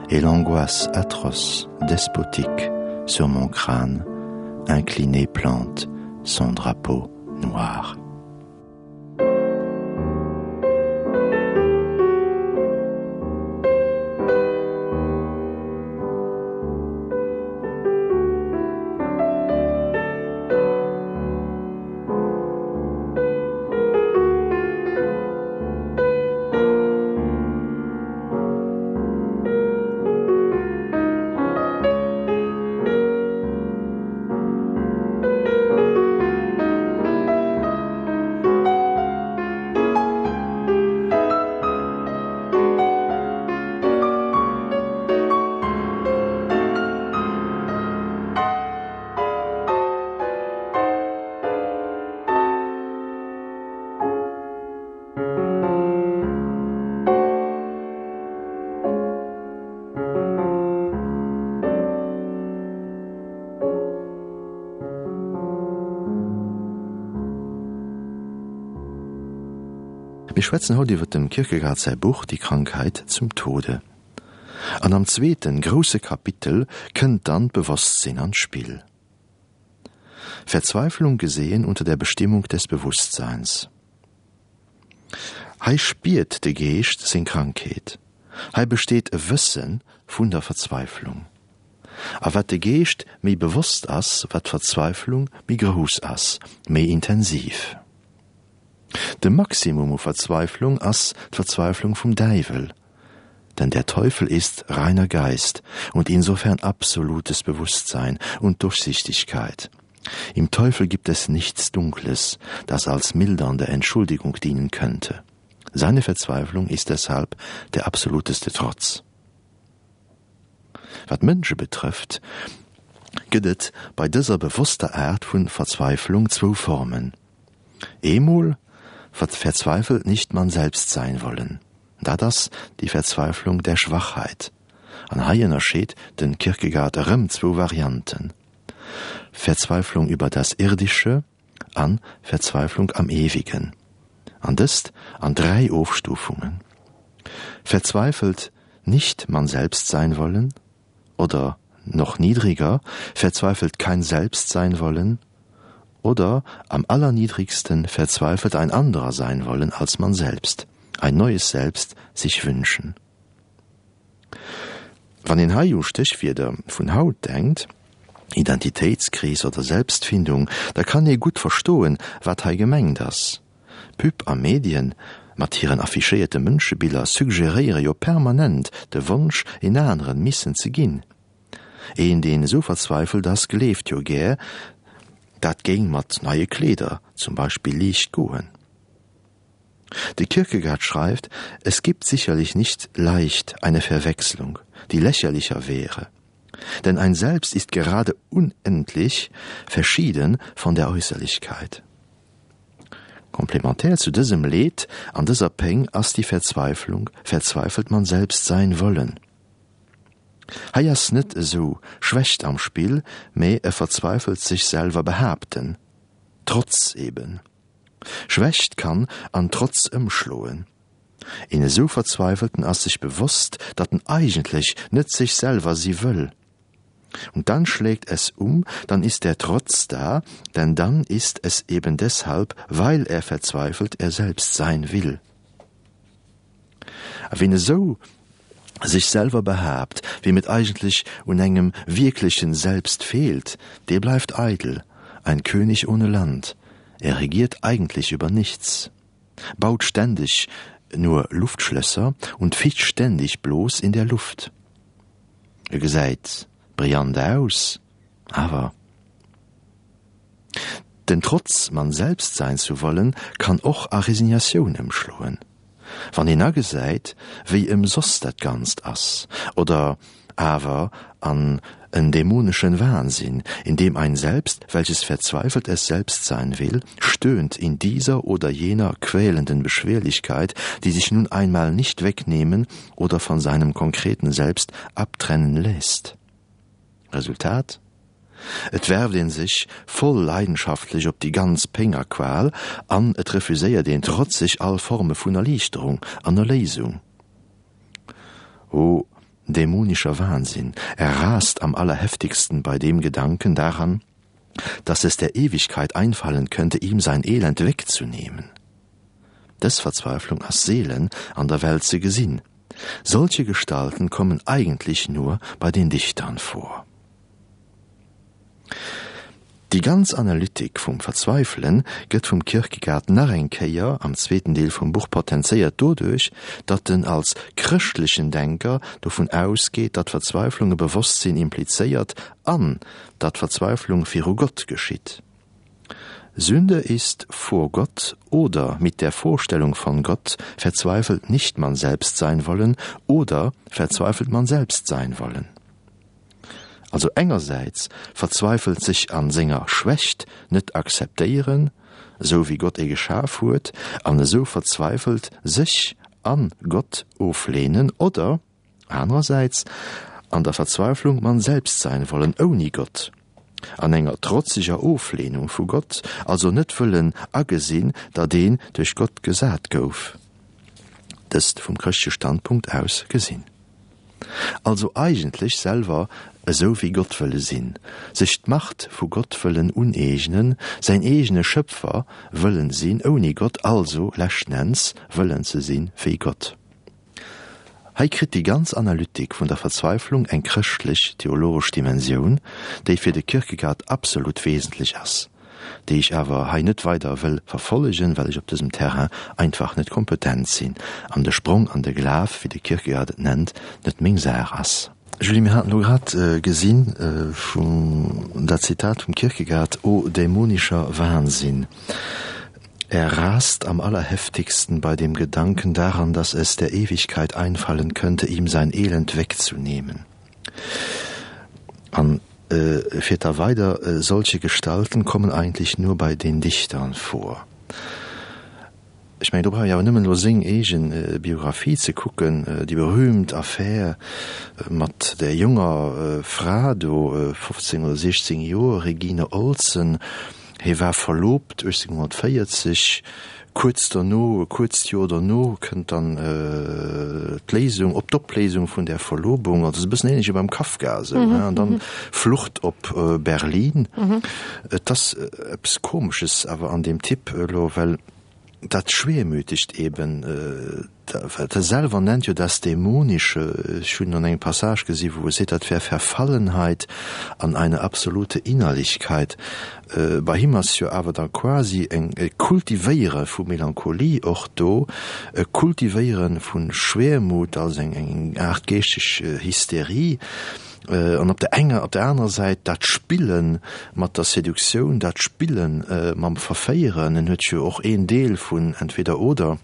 et l'angoisse atroce, despotique, sur mon crâne, incliné plante son drapeau noir. Mir schwätzen haut iwwer dem Kierkegaard säi Buch Die Krankheit zum Tode. An am zweeten, grousse Kapitel kënnt dann d'Bewosstsinn an d'Spill. Verzweiflung gesehen unter der Bestimmung des Bewusstseins. Hei spiert de Geescht seng Krankheet. Hei besteet e Wësse vun der Verzweiflung. A wat de Geescht méi bewosst ass, wat d'Verzweiflung méi grouss ass, méi intensiv. De Maximum u Verzweiflung ass d'Verzweiflung vum Däiwel, denn der Teufel ist reiner Geist und insofern absolutes Bewusstsein und Durchsichtigkeit. Im Teufel gibt es nichts Dunkles, das als mildernde Entschuldigung dienen könnte. Seine Verzweiflung ist deshalb der absoluteste Trotz. Wat d'Mënsche betrëfft, gëtt et bei dëser bewosster Aart vu Verzweiflung zwou Formen. Eemol verzweifelt nicht man selbst sein wollen, dat ass die Verzweiflung der Schwachheit. An hei ënnerscheet de Kierkegaard erëm zwou Varianten, Verzweiflung über das Irdische an Verzweiflung am Ewigen, an dëst an 3 Ofstufungen, Verzweifelt nicht man selbst sein wollen oder noch niedriger, verzweifelt kein Selbst sein wollen oder am allerniedrigsten verzweifelt ein anderer sein wollen als man selbst, ein neues Selbst sich wünschen. Wann een hei u Stéchwierder vun haut denkt, Identitéitskris oder Selbstfindung, da kann ee gutt verstoen, wat hei gemengt ass. Pub a Medien mat hiren affichéierte Mënschebiller suggeréiere jo permanent de Wonsch, een aneren missen ze ginn. Een, deen esou verzweifelt ass, gleeft jo gär, dat géing mat neie Kleeder zum Beispill liicht goen. De Kierkegaard schreift, Es gibt sicherlich nicht leicht eine Verwechslung, die lächerlicher wäre. Denn ein Selbst ist gerade unendlich verschieden von der Äußerlichkeit. Komplementär zu dësem Leed an dëser Péng ass déi Verzweiflung, verzweifelt man selbst sein wollen. Hei ass net esou Schwächt am Spill, mee e verzweifelt sech selwer behaapten, Trotz eben. Schwächt kann an Trotz ëmschloen. Een esou Verzweifelten ass sech bewosst, datt en eigentlech net sech selwer si wëll. Und dann schlägt es um, dann ist der Trotz da, denn dann ist es eben deshalb, weil er verzweifelt er selbst sein will. A wien esou sech selwer behaapt, weem et eigentlech un engem wierklechen Selbst feelt, dee bleift eidel, ein König ohne Land, er regiert eigentlich über nichts, baut ständig nur Luftschlösser und ficht ständig bloß in der Luft. E gesäit brillant aus, awer. Den Trotz, man selbst sein zu wollen, kann och a Resignatioun ëmschloen, wann een agesäit, wéi ëmsoss dat Ganzt ass, oder awer an en dämoneschen Wahnsinn, in dem ein Selbst, welches verzweifelt es selbst sein will, stöhnt in dieser oder jener quälenden Beschwerlichkeit, die sich nun einmal nicht wegnehmen oder von seinem konkreten Selbst abtrennen lässt. Resultat? Et werft een sech voll leidenschaftlech op déi ganz Péng a Qual an et refuséiert een trotzeg all Forme vun Erliichterung an Erléisung. O dämonischer Wahnsinn, er rast am allerheftigsten bei dem Gedanken daran, dass es der Ewigkeit einfallen könnte, ihm sein Elend wegzunehmen. Dës Verzweiflung ass seelen an der Welt ze gesinn. Solche Gestalten kommen eigentlich nur bei den Dichtern vor. Déi ganz Analytik vum Verzweifelen gëtt vum Kierkegaard nach eng Kéier am zweeten Deel vum Buch potenzéiert doduerch, datt en als chrëschtlechen Denker dovun ausgeet, datt Verzweiflung e Bewosstsinn implizéiert an datt Verzweiflung viru Gott geschitt. Sünde ist vor Gott oder mit der Vorstellung von Gott verzweifelt nicht man selbst sein wollen oder verzweifelt man selbst sein wollen. Also engersäits verzweifelt sech an senger Schwächt net akzeptéieren, esou wéi Gott ee geschaf huet, an esou verzweifelt sech an Gott oflehnen, oder anerersäits an der Verzweiflung man selbst sein wollen ouni Gott, an enger trotzeger Oflehnung vu Gott, also net wëllen agesinn, datt een duerch Gott gesat gouf, dëst vum chrëschtleche Standpunkt aus gesinn. Also eigentlech selwer esou wéi Gott wëlle sinn, sech d'Macht vu Gott wëllen uneegnen, säin eegene Schëpfer wëllen sinn ouni Gott, also leschten Enns wëllen ze sinn wéi Gott. Hei kritt déi ganz Analytik vun der Verzweiflung eng chrëschtlech theologesch Dimensioun, déi fir de Kierkegaard absolut wesentlech ass, déi ech awer hei net weider wëll verfollegen, well ech op dësem Terrain einfach net kompetent sinn an de Sprong an de Glaf, wéi de Kierkegaard et nennt, net meng Saach ass. Julie, mir haten elo grad gesinn vum dat Zitat vum Kierkegaard, O dämonischer Wahnsinn! Er rast am allerheftigsten bei dem Gedanken daran, dass es der Ewigkeit einfallen könnte, ihm sein Elend wegzunehmen. An e fiert da weider, Solche Gestalten kommen eigentlich nur bei den Dichtern vor. Ech mengen, do brauch ech awer nëmmen elo seng eege Biographie ze kucken, déi berühmt Affär mat där jonger Fra do, 15 oder 16 Joer, Regine Olsen. Hie war verlobt 1840, kuerz derno, e kuerzt Joer derno kënnt dann d'Léisung, op d'Opléisung vun där Verlobung, also e bëssen ähnlech wéi beim Kafka esou, an dann Flucht op Berlin. Et ass eppes Komesches awer an deem Typ elo, well dat Schwermütegt eben, wat e selwer nennt jo das Dämonische, ech hunn an engem Passage gesi wou e seet, dat wär Verfallenheit an eine absolute Innerlichkeit. Bei him ass jo awer da quasi eng e Kultivéiere vu Melancholie och do, e Kultivéiere vu Schwermut als eng eng Aart geeschteg Hysterie. An op der enger, op der anerer Säit dat Spille mat der Seduktioun, dat Spille mam Verféieren. En huet jo och een Deel vun Entweder oder,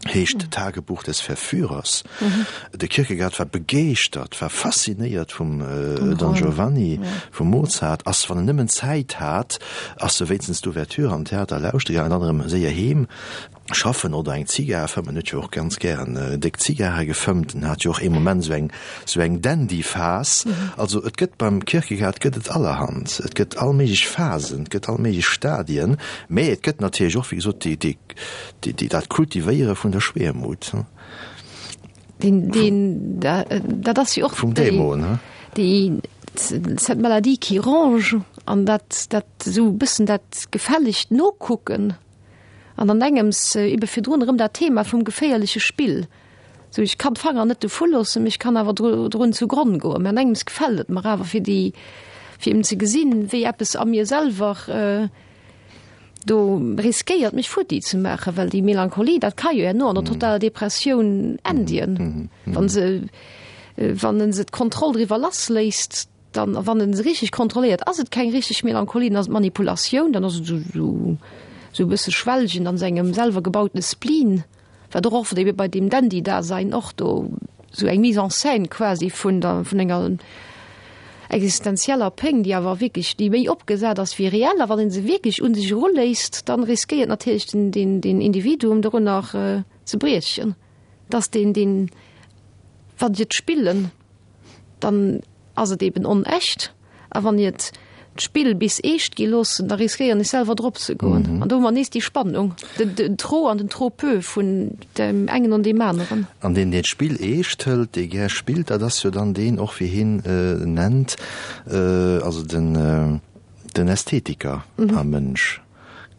heescht Tagebuch des Verführers. De Kierkegaard war begeeschtert, war faszinéiert vum Don Giovanni, vum Mozart, ass, wann en nëmmen Zäit hat, ass e wéinstens d'Ouverture am Theater lauschtere gaangen, dann erëm séier heem. Schaffen oder eng Zigar fëmmen, huet jo och ganz gären déck Zigare gefëmmt, en hat jo och ee Moment sou eng sou eng Dandy-Phas. Also et gëtt beim Kierkegaard gëtt et allerhand, et gëtt all méiglech Phasen, et gëtt all méiglech Stadien, mä et gëtt natierlech och wéi gesot déi déi déi dat Kultivéiere vun der Schwermut. Deen deen dat ass jo och vum Dämon, he? Déi cette maladie qui ronge an dat dat esou e bëssen dat gefällegt Nokucken. An an engems ebe virdrun erëm dat Thema vum geféierleche Spill. Sou, ech kann d'Fanger net dovu loossen, mee ech kann awer drun zu Gronn goen. Mä an engems gefält et mer awer, fir déi, fir eben ze gesinn, wéi eppes a mir selwer do riskéiert, mech futti ze maachen. Well déi Melancholie, dat ka jo herno an der totaler Depressioun endien, wa se, wann e se d'Kontroll driwwer lassléisst. Dann, a wann en se richteg kontrolléiert, ass et keng richteg Melancholie, dann ass et Manipulatioun, dann ass et esou esou e bësse Schwelgen an sengem selwer gebautene Spleen, wat och oft ebe bei deem Dandy-Dasein och do esou eng Mise en scène quasi vun der, vun enger existenzieller Péng, déi awer wierklech, déi méi opgesat ass wéi reell. A wann ee se wierklech un sech eruléisst, dann riskéiert natierlech den, den, den Individuum dorunner ze briechen, dass deen, deen, wann se et spillen, dann ass et eben onecht. A wann ir d'Spill bis eescht gi loossen, da riskéieren ech selwer drop ze goen. An do hu mer nees déi Spannung, den trop an den trop peu vun deem engen an deem aneren. An deen, deen d'Spill eescht hëlt, dee gär spillt, dat ass jo dann deen och, wéi hien nennt, also den den Ästhetiker am Mënsch,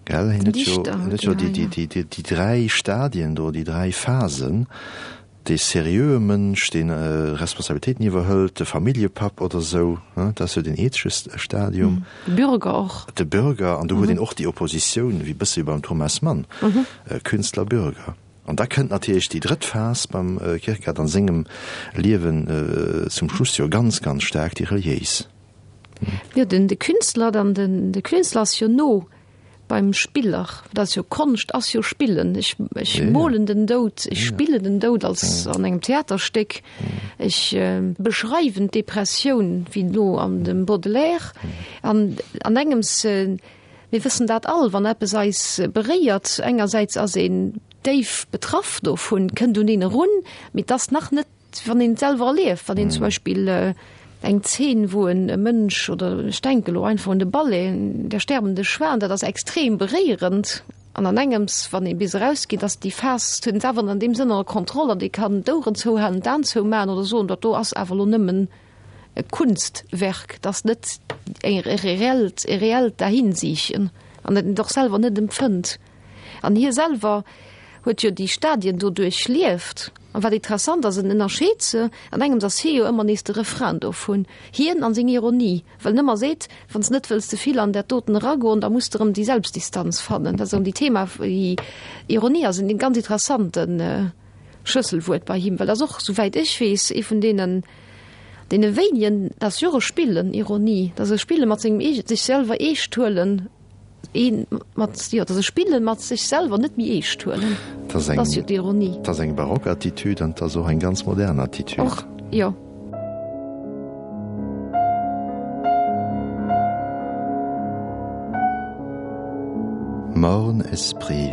gell? Hien huet jo, hien huet jo déi dräi Stadien do, déi dräi Phasen. Dee seriöe Mënsch, dee Responsabilitéiten iwwerhëlt, de Familljepapp oder esou, dat ass jo deen ethesche Stadium. De Bürger och. De Bürger, an do huet een och déi Oppositioun, wéi bësse wéi beim Thomas Mann, Künstler, Bürger. An da kënnt natierlech déi drëtt Phas beim Kierkegaard an sengem Liewen zum Schluss jo ganz, ganz staark, déi reliéis. Jo, den de Künstler, dann den de Künstler ass jo no beim Spiller, dat ass jo Konscht ass jo Spillen. Ech ech molen den Doud, ech spillen den Doud als an engem Theaterstéck, ech beschreiwen d'Depressioun wéi no an dem Baudelaire an an engems, mir wëssen dat all, wann eppes eis beréiert, engersäits ass een déif betraff dovun, kënnt un een erun, mee et ass nach net Wann een et selwer erlieft, wann een zum Beispill eng Zeen, wou en e Mënsch, oder ech denke lo einfach un de Ballet Der sterbende Schwan, dat ass extrem beréierend an an engems, wann ee bis erausgeet, ass déi Phas, huet een et awer an deem Sënn ënner Kontroll an ee kann d'Oueren zouhalen, d'Aen zoumaachen oder soen, dat do ass awer lo nëmmen e Kunstwerk, dat ass net e reellt, e reellt Dahinsiichen an dat een et och selwer net empfënnt. An hie selwer huet jo déi Stadien do duerchlieft. An wat interessant ass, en ënnerscheet se, an engems ass hie jo ëmmer nees de Refrain dovun, hien an seng Ironie, well en ëmmer seet, wann s de net wëlls ze vill an dat doten eragoen, da muss de erëm déi Selbstdistanz fannen. Dat ass erëm déi Thema, déi Ironie ass en ganz interessante Schlësselwuert bei him, well ass och, souwäit ech weess, ee vun deenen, deene wéinigen, dat ass jo och e Spillen, Ironie, dat ass e Spille mat sengem eege, sech selwer eescht huelen. Een mat, jo, dass e Spillen mat sech selwer net méi eescht huelen. Dat ass jo d'Ironie. Dat ass eng barock Attitude an dat ass och eng ganz modern Attitude. Och, jo. Morne esprit,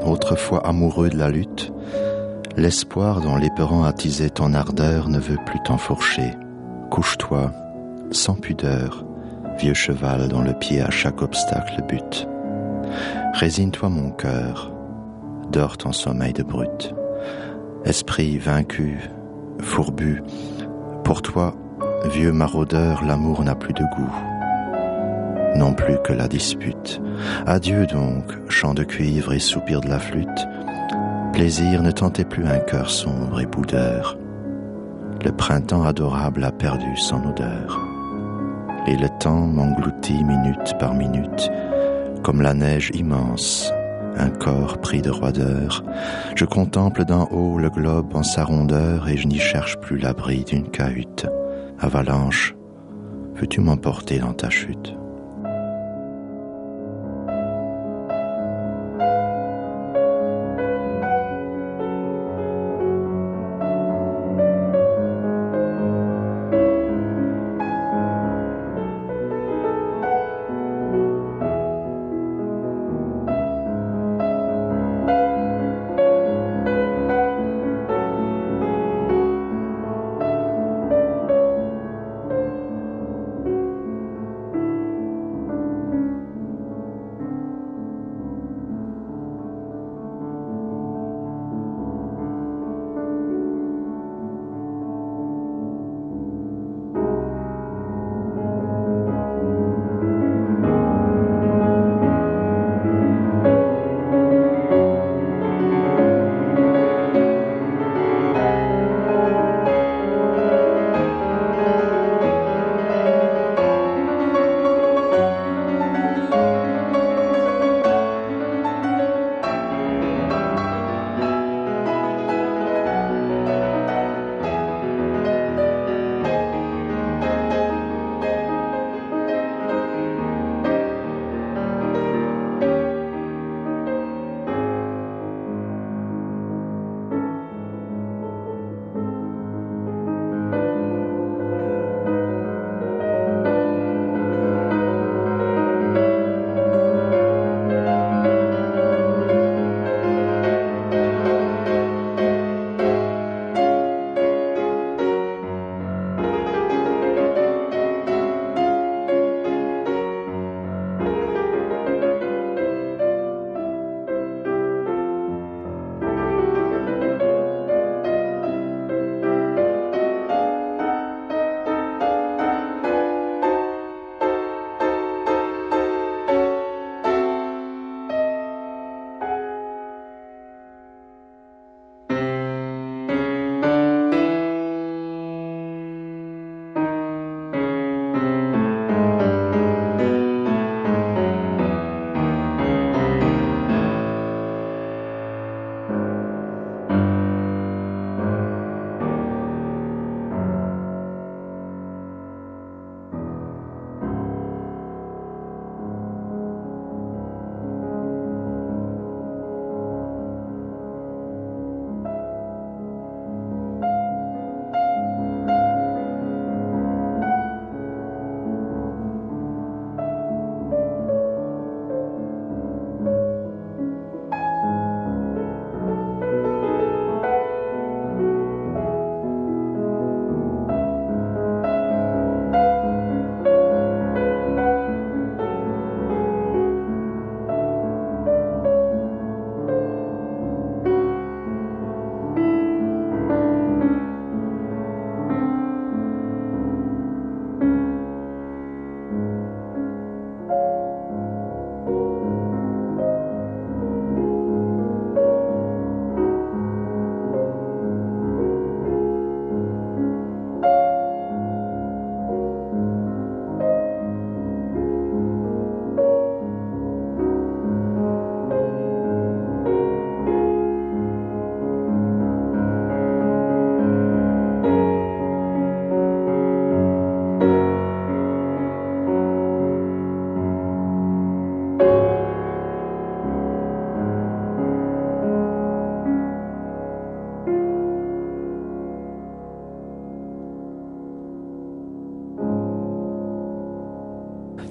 autrefois amoureux de la lutte, l'espoir dont l'éperon attisait ton ardeur ne veut plus t'enfourcher. Couche-toi, sans pudeur, vieux cheval dont le pied à chaque obstacle bute. Résigne-toi mon cœur, dors ton sommeil de brute. Esprit vaincu, fourbu, pour toi, vieux maraudeur, l'amour n'a plus de goût. Non plus que la dispute. Adieu donc, chant de cuivre et soupir de la flûte. Plaisir ne tentait plus un cœur sombre et boudeur. Le printemps adorable a perdu son odeur. Et le temps m'engloutit minute par minute, comme la neige immense, un corps pris de roideur. Je contemple d'en haut le globe en sa rondeur et je n'y cherche plus l'abri d'une cahute. Avalanche, veux-tu m'emporter dans ta chute?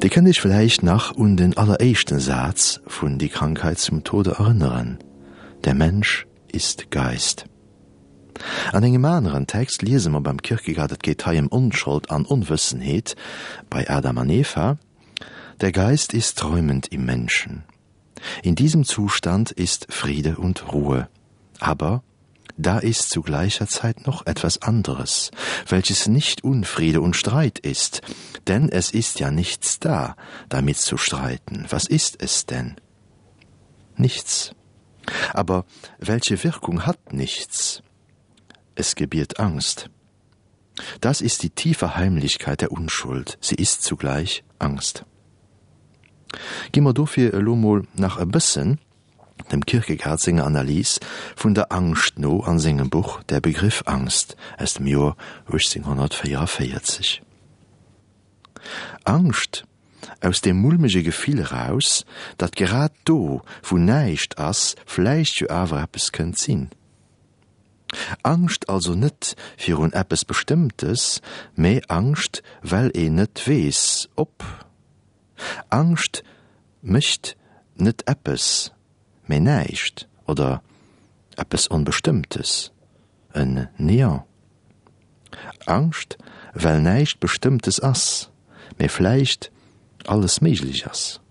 Dir kënnt Iech vläicht nach un den alleréischten Saz vun Die Krankheit zum Tode erënneren, Der Mensch ist Geist. An engem aneren Text liese mer beim Kierkegaard, et geet hei ëm Onschold an Onwëssenheet bei Adam an Eva, Der Geist ist träumend im Menschen. In diesem Zustand ist Friede und Ruhe. Aber da ist zu gleicher Zeit noch etwas anderes, welches nicht Unfriede und Streit ist, denn es ist ja nichts da, damit zu streiten. Was ist es denn? Nichts. Aber welche Wirkung hat nichts? Es gebiert Angst. Das ist die tiefe Heimlichkeit der Unschuld, sie ist zugleich Angst. Gi mer dofir elo mol nach e bëssen dem Kierkegaard senger Analys vun der Angscht no an sengem Buch Der Begriff Angst aus dem Joer 1844. Angscht aus deem mulmege Gefill eraus, datt grad do, wou näischt ass, vläicht jo awer eppes kënnt sinn. Angscht also net virun eppes Bestëmmtes, mä Angscht, well een net weess, ob. Angscht mécht net eppes, mä näischt oder eppes Onbestëmmtes, en Néant. Angscht, well näischt Bestëmmtes ass, mä vläicht alles méiglech ass.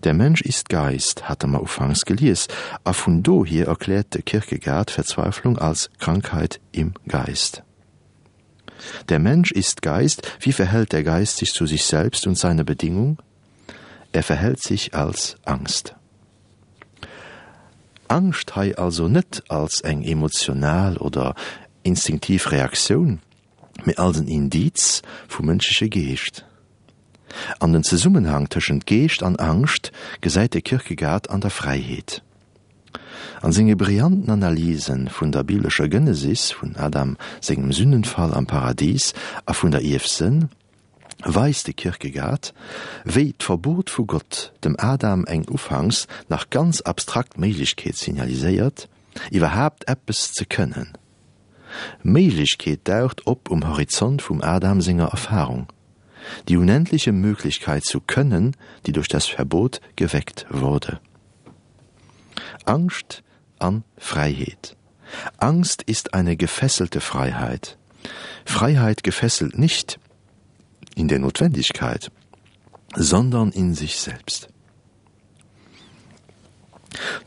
Der Mensch ist Geist hate mer ufanks gelies, a vun dohier erkläert de Kierkegaard Verzweiflung als Krankheit im Geist. Der Mensch ist Geist, wie verhält der Geist sich zu sich selbst und seiner Bedingung? Er verhält sich als Angst. Angscht hei also net als eng emotional oder instinktiv Reaktioun, mee als en Indiz vum mënschleche Geescht. An den Zesummenhang tëschent Geescht an Angscht gesäit de Kierkegaard an der Fräiheet. An senge brillanten Analyse vun der biblescher Genesis, vun Adam sengem Sünnenfall am Paradis a vun der Ierfsënn, weist de Kierkegaard, wéi d'Verbot vu Gott dem Adam eng ufanks nach ganz abstrakt Méiglechkeet signaliséiert, iwwerhaapt eppes ze kënnen. Méiglechkeet daucht op um Horizont vum Adam senger Erfahrung, die unendliche Möglichkeit zu können, die durch das Verbot geweckt wurde. Angscht an Fräiheet. Angst ist eine gefesselte Freiheit. Freiheit gefesselt nicht in der Notwendigkeit, sondern in sich selbst.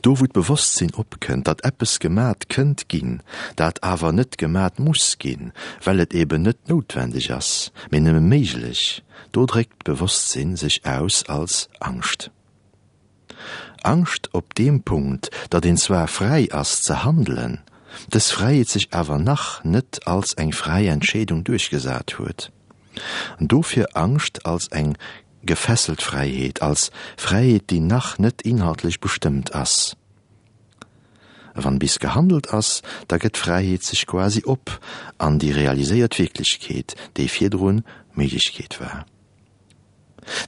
Do wou d'Bewosstsinn opkënnt, datt eppes gemat kënnt ginn, dat awer net gemat muss ginn, well et eben net noutwendeg ass, mee nëmme méiglech, do dréckt d'Bewosstsinn sech aus als Angscht. Angscht op deem Punkt, datt een zwar fräi ass ze handelen, dës Fräiheet sech awer nach net als eng fräi Entscheedung duerchgesat huet. Dofir Angscht als eng gefesselt Fräiheet, als Fräiheet, déi nach net inhaltlech bestëmmt ass. Wann bis gehandelt ass, da gëtt d'Fräiheet sech quasi op an déi realiséiert Wierklechkeet, déi virdrun Méiglechkeet war.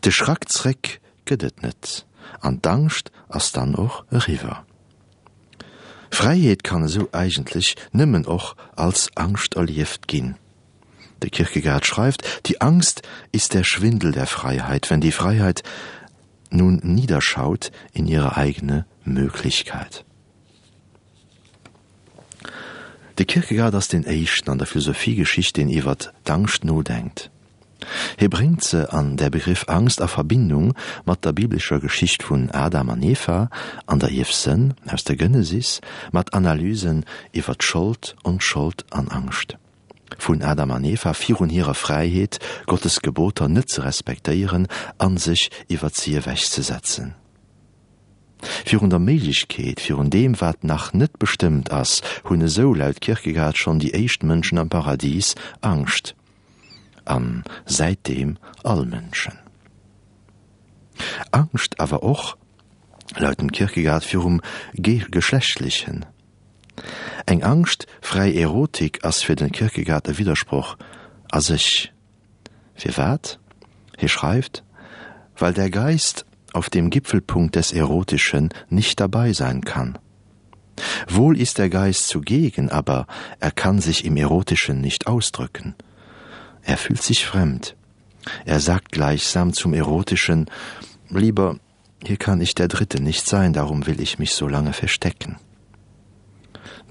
De Schrack zréck gëtt et net an d'Angscht ass dann och eriwwer. Fräiheet kann esou eigentlech nëmmen och als Angscht erlieft ginn. De Kierkegaard schreift, Die Angst ist der Schwindel der Freiheit, wenn die Freiheit nun niederschaut in ihre eigene Möglichkeit. De Kierkegaard ass deen éischten an der Philosophiegeschicht, deen iwwert d'Angscht nodenkt. Hie bréngt se an Der Begriff Angst a Verbindung mat der biblescher Geschicht vun Adam an Eva an der Ierfsënn aus der Genesis, mat Analysen iwwer d'Schold, Onschold an Angscht. Vun Adam an Eva virun hirer Fräiheet, Gottes Geboter net ze respektéieren an sech iwwert si ewechzesetzen. Virun der Méiglechkeet, virun deem wat nach net bestëmmt ass, hunn esou laut Kierkegaard schonn déi éischt Mënschen am Paradis Angscht. An säitdeem all Mënschen. Angscht awer och, laut dem Kierkegaard, virum Geschlechtlechen. Eng Angscht fräi Erotik ass fir den Kierkegaard e Widdersproch a sech. Firwat? Hie schreift, Weil der Geist auf dem Gipfelpunkt des Erotischen nicht dabei sein kann. Wohl ist der Geist zugegen, aber er kann sich im Erotischen nicht ausdrücken. Er fühlt sich fremd. Er sagt gleichsam zum Erotischen: Lieber, hier kann ich der Dritte nicht sein, darum will ich mich so lange verstecken.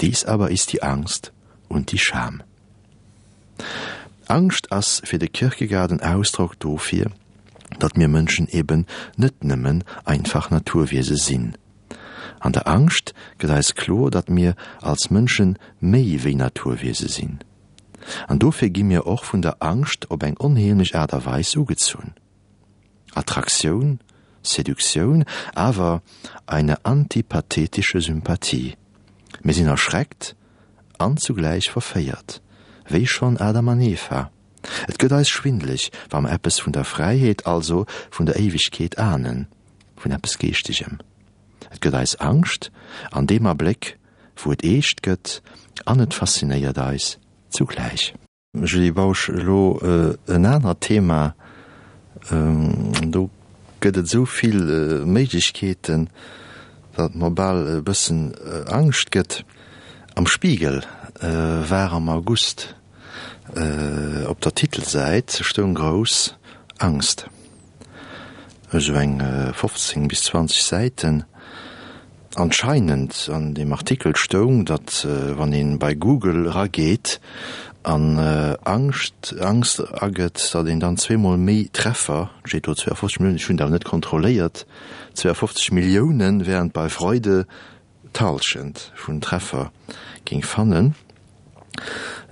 Dies aber ist die Angst und die Scham. Angscht ass fir de Kierkegaard en Ausdrock dofir, datt mir Mënschen eben net nëmmen einfach Naturwiese sinn. An der Angscht gëtt eis kloer, datt mir als Mënsche méi wéi Naturwiese sinn. An dofir gi mir och vun der Angscht op eng onheemlech Aart a Weis ugezunn. Attraktioun, Seduktioun, awer eine antipathetische Sympathie. Mir sinn erschreckt an zugläich verféiert, wéi schonn Adam an Eva. Et gëtt eis schwindeleg, wa mer eppes vun der Fräiheet, also vun der Éiwegkeet ahnen, vun eppes Geeschtegem. Et gëtt eis Angscht an deem Abléck, wou et eescht gëtt, an et faszinéiert eis zugläich. Julie Bausch, Elo en anert Thema, do gëtt et esou vill Méiglechkeeten, datt et mer bal e bëssen Angscht gëtt. Am Spiegel war am August op der Titelsäit stoung grouss Angst. Esou eng 15 bis 20 Säiten. Anscheinend an deem Artikel stoung, datt wann ee bei Google erageet an Angscht, Angst agëtt, datt een dann zweemol méi Treffer, et steet do 52 Milliounen, ech hunn dat awer net kontrolléiert, 52 Milliounen, während bei Freude d'Halschent vun Treffer géing fannen.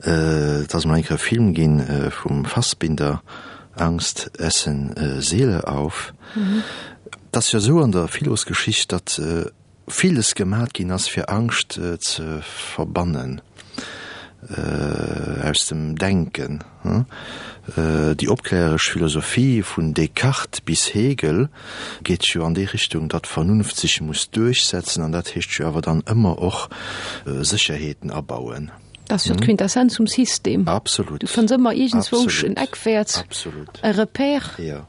Et ass emol eng Kéier e Film ginn vum Fassbinder, Angst essen Seele auf. Et ass jo esou an der Philosgeschicht, datt villes gemat ginn ass fir Angscht ze verbannen aus dem Denken. Déi opkläreresch Philosophie vun Descartes bis Hegel geet jo an déi Richtung, datt d'Vernunft sech muss duerchsetzen, an dat heescht jo awer dann ëmmer och Sécherheeten abauen. Dat ass jo d'Quintessenz vum System. Absolut. Du fënns ëmmer iergendzwousch en Eckwäert, e Repère. Jo.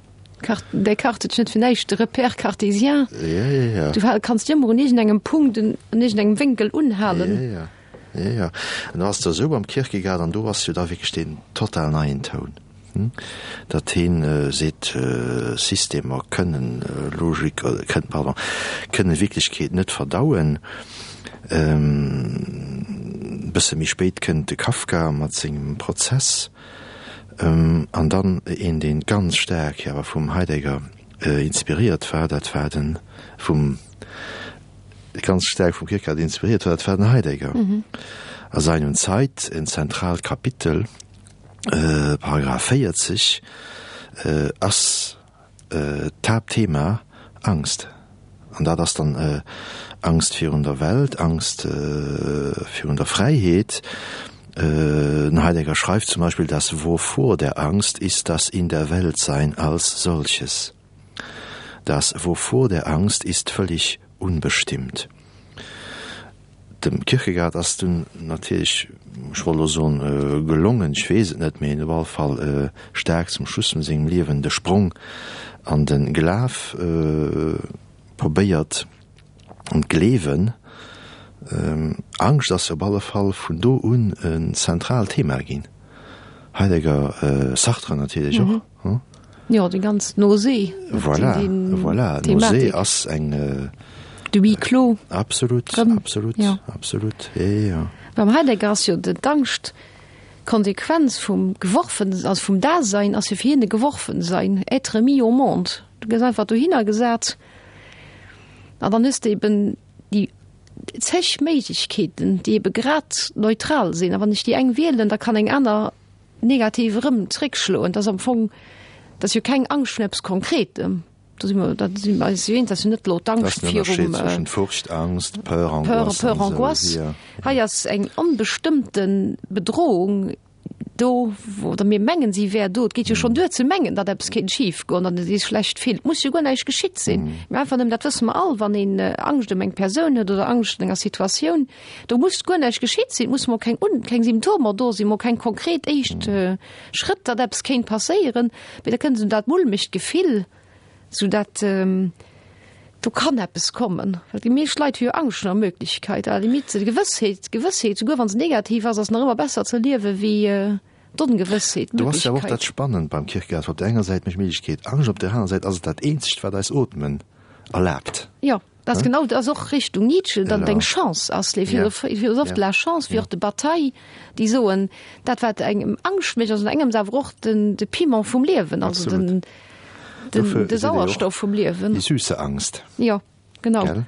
Descartes huet net fir näischt de Repère cartésien. Jo, jo, jo. Du kanns ëmmer un iergendengem Punkt, un iergendengem Wénkel unhalen. Jo, jo. Jo, jo. An do ass et esou beim Kierkegaard, an do ass jo da wierklech deen total neien Toun, datt heen seet, Systemer kënnen Logik, kënnen, pardon, kënnen Wierklechkeet net verdauen. E bësse méi spéit kënnt de Kafka mat sengem Prozess. An dann een, dee ganz staark jo awer vum Heidegger inspiréiert war, dat war de vum, ganz staark vum Kierkegaard inspiréiert war, dat war den Heidegger. A Sein und Zeit, en zentraalt Kapitel, Paragraph 40, ass d'Haaptthema Angst. An dat ass dann Angst virun der Welt, Angst virun der Fräiheet. Den Heidegger schreift zum Beispill, Das Wovor der Angst ist das In-der-Welt-Sein als solches. Das Wovor der Angst ist völlig unbestimmt. Dem Kierkegaard ass dunn natierlech, ech wollt elo soen gelongen, ech weess et net, mee op alle Fall staark zum Schluss vun sengem Liewen de Sprong an de Glaf probéiert, an d'Gleewen. Angscht ass op alle Fall vun do un en zentraalt Thema ginn. Heidegger, Sartre natierlech och. Jo, déi ganz Nausée. Voilà, voilà, Nausée ass eng. De Huis clos. Absolut, absolut, absolut, jo, jo. Beim Heidegger ass jo d'Angscht d'Konsequenz vum Geworfen, also vum Dasein ass jo fir hien e Geworfensein, être mis au monde. Du gëss einfach dohinner gesat an dann hues de eben déi zeg Méiglechkeeten, déi ebe grad neutral sinn. A wann ech déi eng wielen, da kann eng aner negativ erëm zréckschloen. Dat ass am Fong, dat ass jo keng Angscht vun eppes Konkretem. Do si mer, da si mer eis jo eens, dat ass jo net elo d'Angscht virum. Dat ass den Ënnerscheed zwëschen Furcht, Angst, Peur, Angoisse. Peur, Angoisse. Hei ass eng onbestëmmte Bedrohung do, oder mir mengen, si wär do. Et geet jo schonn duer ze mengen, datt eppes kéint schifgoen, datt ee sech schlecht fillt. Et muss jo guer näischt geschitt sinn, mä einfach nëmmen, dat wësse mer all, wann een Angscht ëm eng Persoun huet oder Angscht an enger Situatioun, Do muss guer näischt geschitt sinn, et musse mol keng un keng Symptomer do sinn, mol keng konkret éischt Schrëtt, datt eppes kéint passéieren, mee da kënnt esou dat mulmegt Gefill, esou dat do kann eppes kommen. Well déi meescht Leit hu jo Angscht vun der Möglichkeit, à la limite d'Gewëssheet, d'Gewëssheet, souguer wa se negativ ass, ass nach ëmmer besser ze liewe wéi. D'Ongewëssheet, Do ass jo och dat d'Möglichkeit. Spannend beim Kierkegaard, Op der enger Säit mécht Méiglechkeet Angscht, op der anerer Säit ass et dat eenzegt, wat eis Ootmen erlaabt. Jo, dat ass genau, dat ass och Richtung Nietzsche, datt et eng Chance ass, les philosophes de la chance, wéi och de Bataille, déi soen, dat wat engem Angscht mécht, ass an engems awer och den, de Piment vum Liewen, also den, den, de Sauerstoff vum Liewen. Die süße Angst. Jo. Genau. Gell?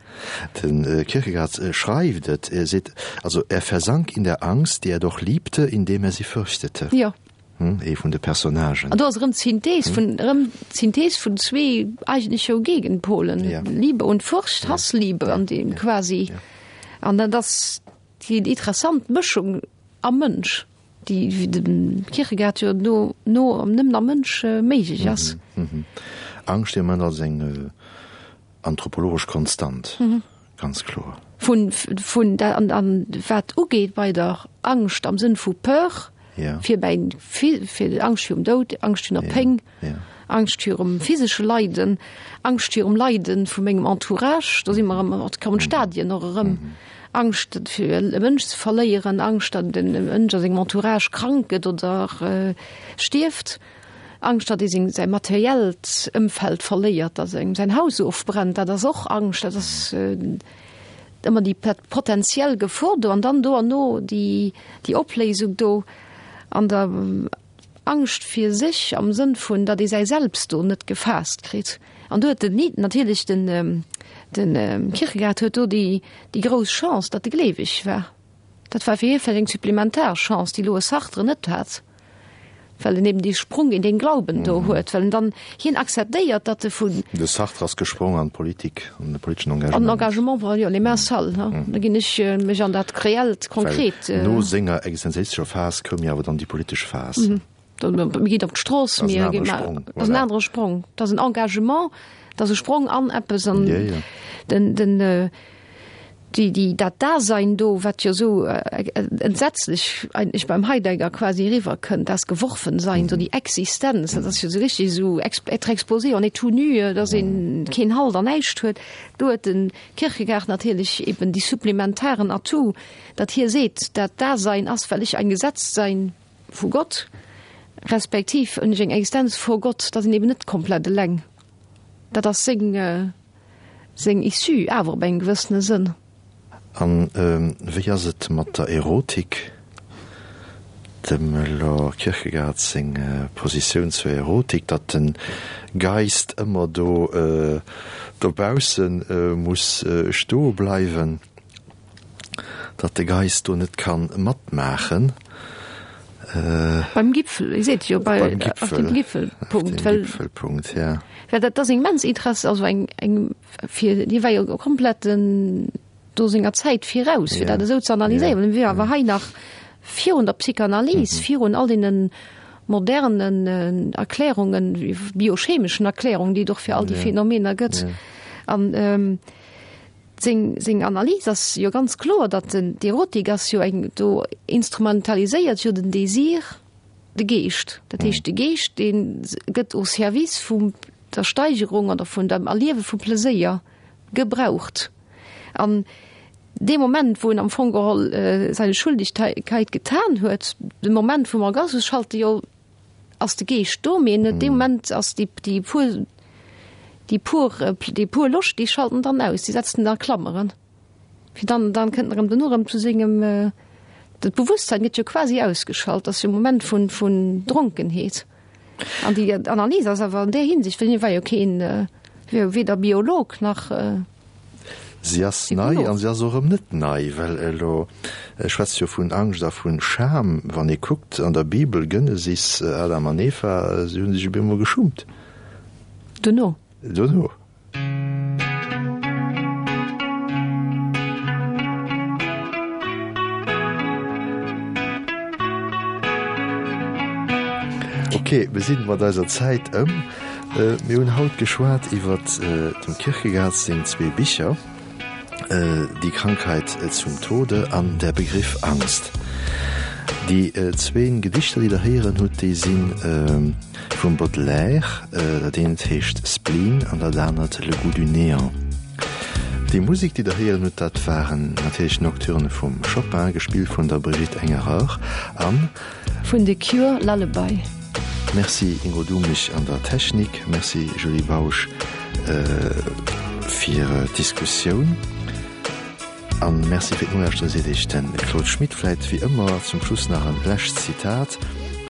Den äh, Kierkegaard äh, schreift et, er seet, also er versank in der Angst, die er doch liebte, indem er sie fürchtete. Jo. Hm, ee vun de Personnagen. An do ass erëm d'Synthees vun, erëm d'Synthees vun zwee eigentlech jo Gegenpolen, Ja. Liebe und Furcht, Hassliebe an deem quasi. An dat ass déi interessant Mëschung am Mënsch, déi, wéi de Kierkegaard jo no, no nëmmen am Mënsch méiglech ass. Angscht, déi am Moment als eng Anthropologesch Konstant, ganz kloer. Vun, vun, an, an wat ugeet bei der Angscht am Sënn vu Peur, fir bäi, fir Angscht virum Doud, Angscht virun der Péng, Angscht virum physesche Leiden, Angscht virum Leiden vu mengem Entourage, do si mer erëm, et kommen d'Stadien och erëm, Angscht fir e Mënsch ze verléieren, Angscht datt e Mënsch a sengem Entourage krank gëtt oder stierft. Angscht, datt ee seng, säi materiellt Ëmfeld verléiert, datt engem säin Haus ofbrennt, dat ass och Angscht, dat ass ëmmer déi potentiell Gefor do an dann do an no déi, déi Opléisung do an der Angscht fir sech am Sënn vun, datt ee säi Selbst do net gefaasst kritt. An do huet den Ni-, natierlech den, den Kierkegaard huet do déi, déi grouss Chance, datt e gleeweg war. Dat war fir hie vläicht eng supplementar Chance, déi elo e Sartre net hat, well en eben dee Sprung in den Glauben do huet, well en dann, hien akzeptéiert, datt e vun. De Sartre ass gesprong an d'Politik, an de politeschen Engagement. An den Engagement, voilà, jo, les mains sales, ne, da ginn ech mech an dat Reellt, Konkret. Well no senger existenzialistescher Phas koum jo awer dann déi politesch Phas. Mir ginn op d'Strooss, mir ginn, dat ass en anere Sprong, dat ass en Engagement, dat ass e Sprong an eppes an den, den, déi, déi, dat Dasein do, wat jo esou entsetzlech eigentlech beim Heidegger quasi eriwwerkënnt, das Geworfensein, esou déi Existenz, dat ass jo esou richtig esou être exposé, on est tout nu, dass een keen Halt an näischt huet. Do huet de Kierkegaard natierlech eben déi supplementaren Atout, datt hie seet, dat Dasein ass, well ech ein Gesetztsein vu Gott, respektiv hunn ech eng Existenz vor Gott, da sinn eben net komplett eleng. Dat ass seng, seng Issue awer op engem gewëssene Sënn. An wéi ass et mat der Erotik? Dem Lord Kierkegaard seng Positioun zur Erotik, datt de Geist ëmmer do dobausse muss stoe bleiwen. Datt de Geist do net kann matmaachen. Beim Gipfel, Dir seet jo, bei, Beim auf dem Gipfel. Gipfelpunkt, Auf dem well, Gipfelpunkt, ja. well dat ass immens interess-, also eng, eng fir, hie war jo komplett den, do senger Zäit viraus, fir Ja. dat esou ze analyséieren. Ja. Hie war awer hei nach virun der Psychanalyse, virun all deene modernen Erklärungen, biochemeschen Erklärungen, déi et och fir all déi Ja. Phänomener gëtt. Ja. An, Seng, seng Analys ass jo ganz kloer, datt den, d'Erotik ass jo eng, do instrumentaliséiert jo den Désir de Geescht. Dat heescht, de Geescht, dee gëtt au service vum der Steigerung oder vun dem Erliewe vum Pleséier gebraucht. An dee Moment, wou en am Fong geholl seine Schuldigkeit getan huet, de Moment vum Orgasmus, schalt e jo ass de Geescht do, mee net dee Moment ass déi déi pur déi pur déi pur Loscht, déi schalten dann aus, déi setzen en a Klammeren, fir dann dann kënnt en erëm duerno erëm zu sengem dat Bewusstsein gëtt jo quasi ausgeschalt, ass jo e Moment vun vun Dronkenheet. An déi Analys ass awer an där Hinsicht, well hie war jo keen weder Biolog nach. Si ass nei an si ass och erëm net nei, well elo schwätzt jo vun Angscht a vun Scham. Wann ee kuckt an der Bibel, Genesis, Adam an Eva, si hu sech op eemol geschummt. Dono. Dono. Ok, mir sinn mat eiser Zäit ëm. Mir hunn haut geschwat iwwer dem Kierkegaard seng zwee Bicher, Die Krankheit zum Tode an Der Begriff Angst. Déi zwéin Gedichter, déi Der héieren hutt, déi si vum Baudelaire. Dat eent heescht Spleen an dat anert Le goût du néant. Déi Musek, déi Der héieren hutt, dat waren natierlech d'Nocturne vum Chopin, gespillt vun der Brigitte Engerer. An. Vun The Cure, Lullaby. Merci Ingo Duhmig an der Technik, merci Julie Bausch fir d'Diskussioun an merci fir d'Nolauschteren seet Iech den Claude Schmit. Vläit wéi ëmmer zum Schluss nach en lescht Zitat.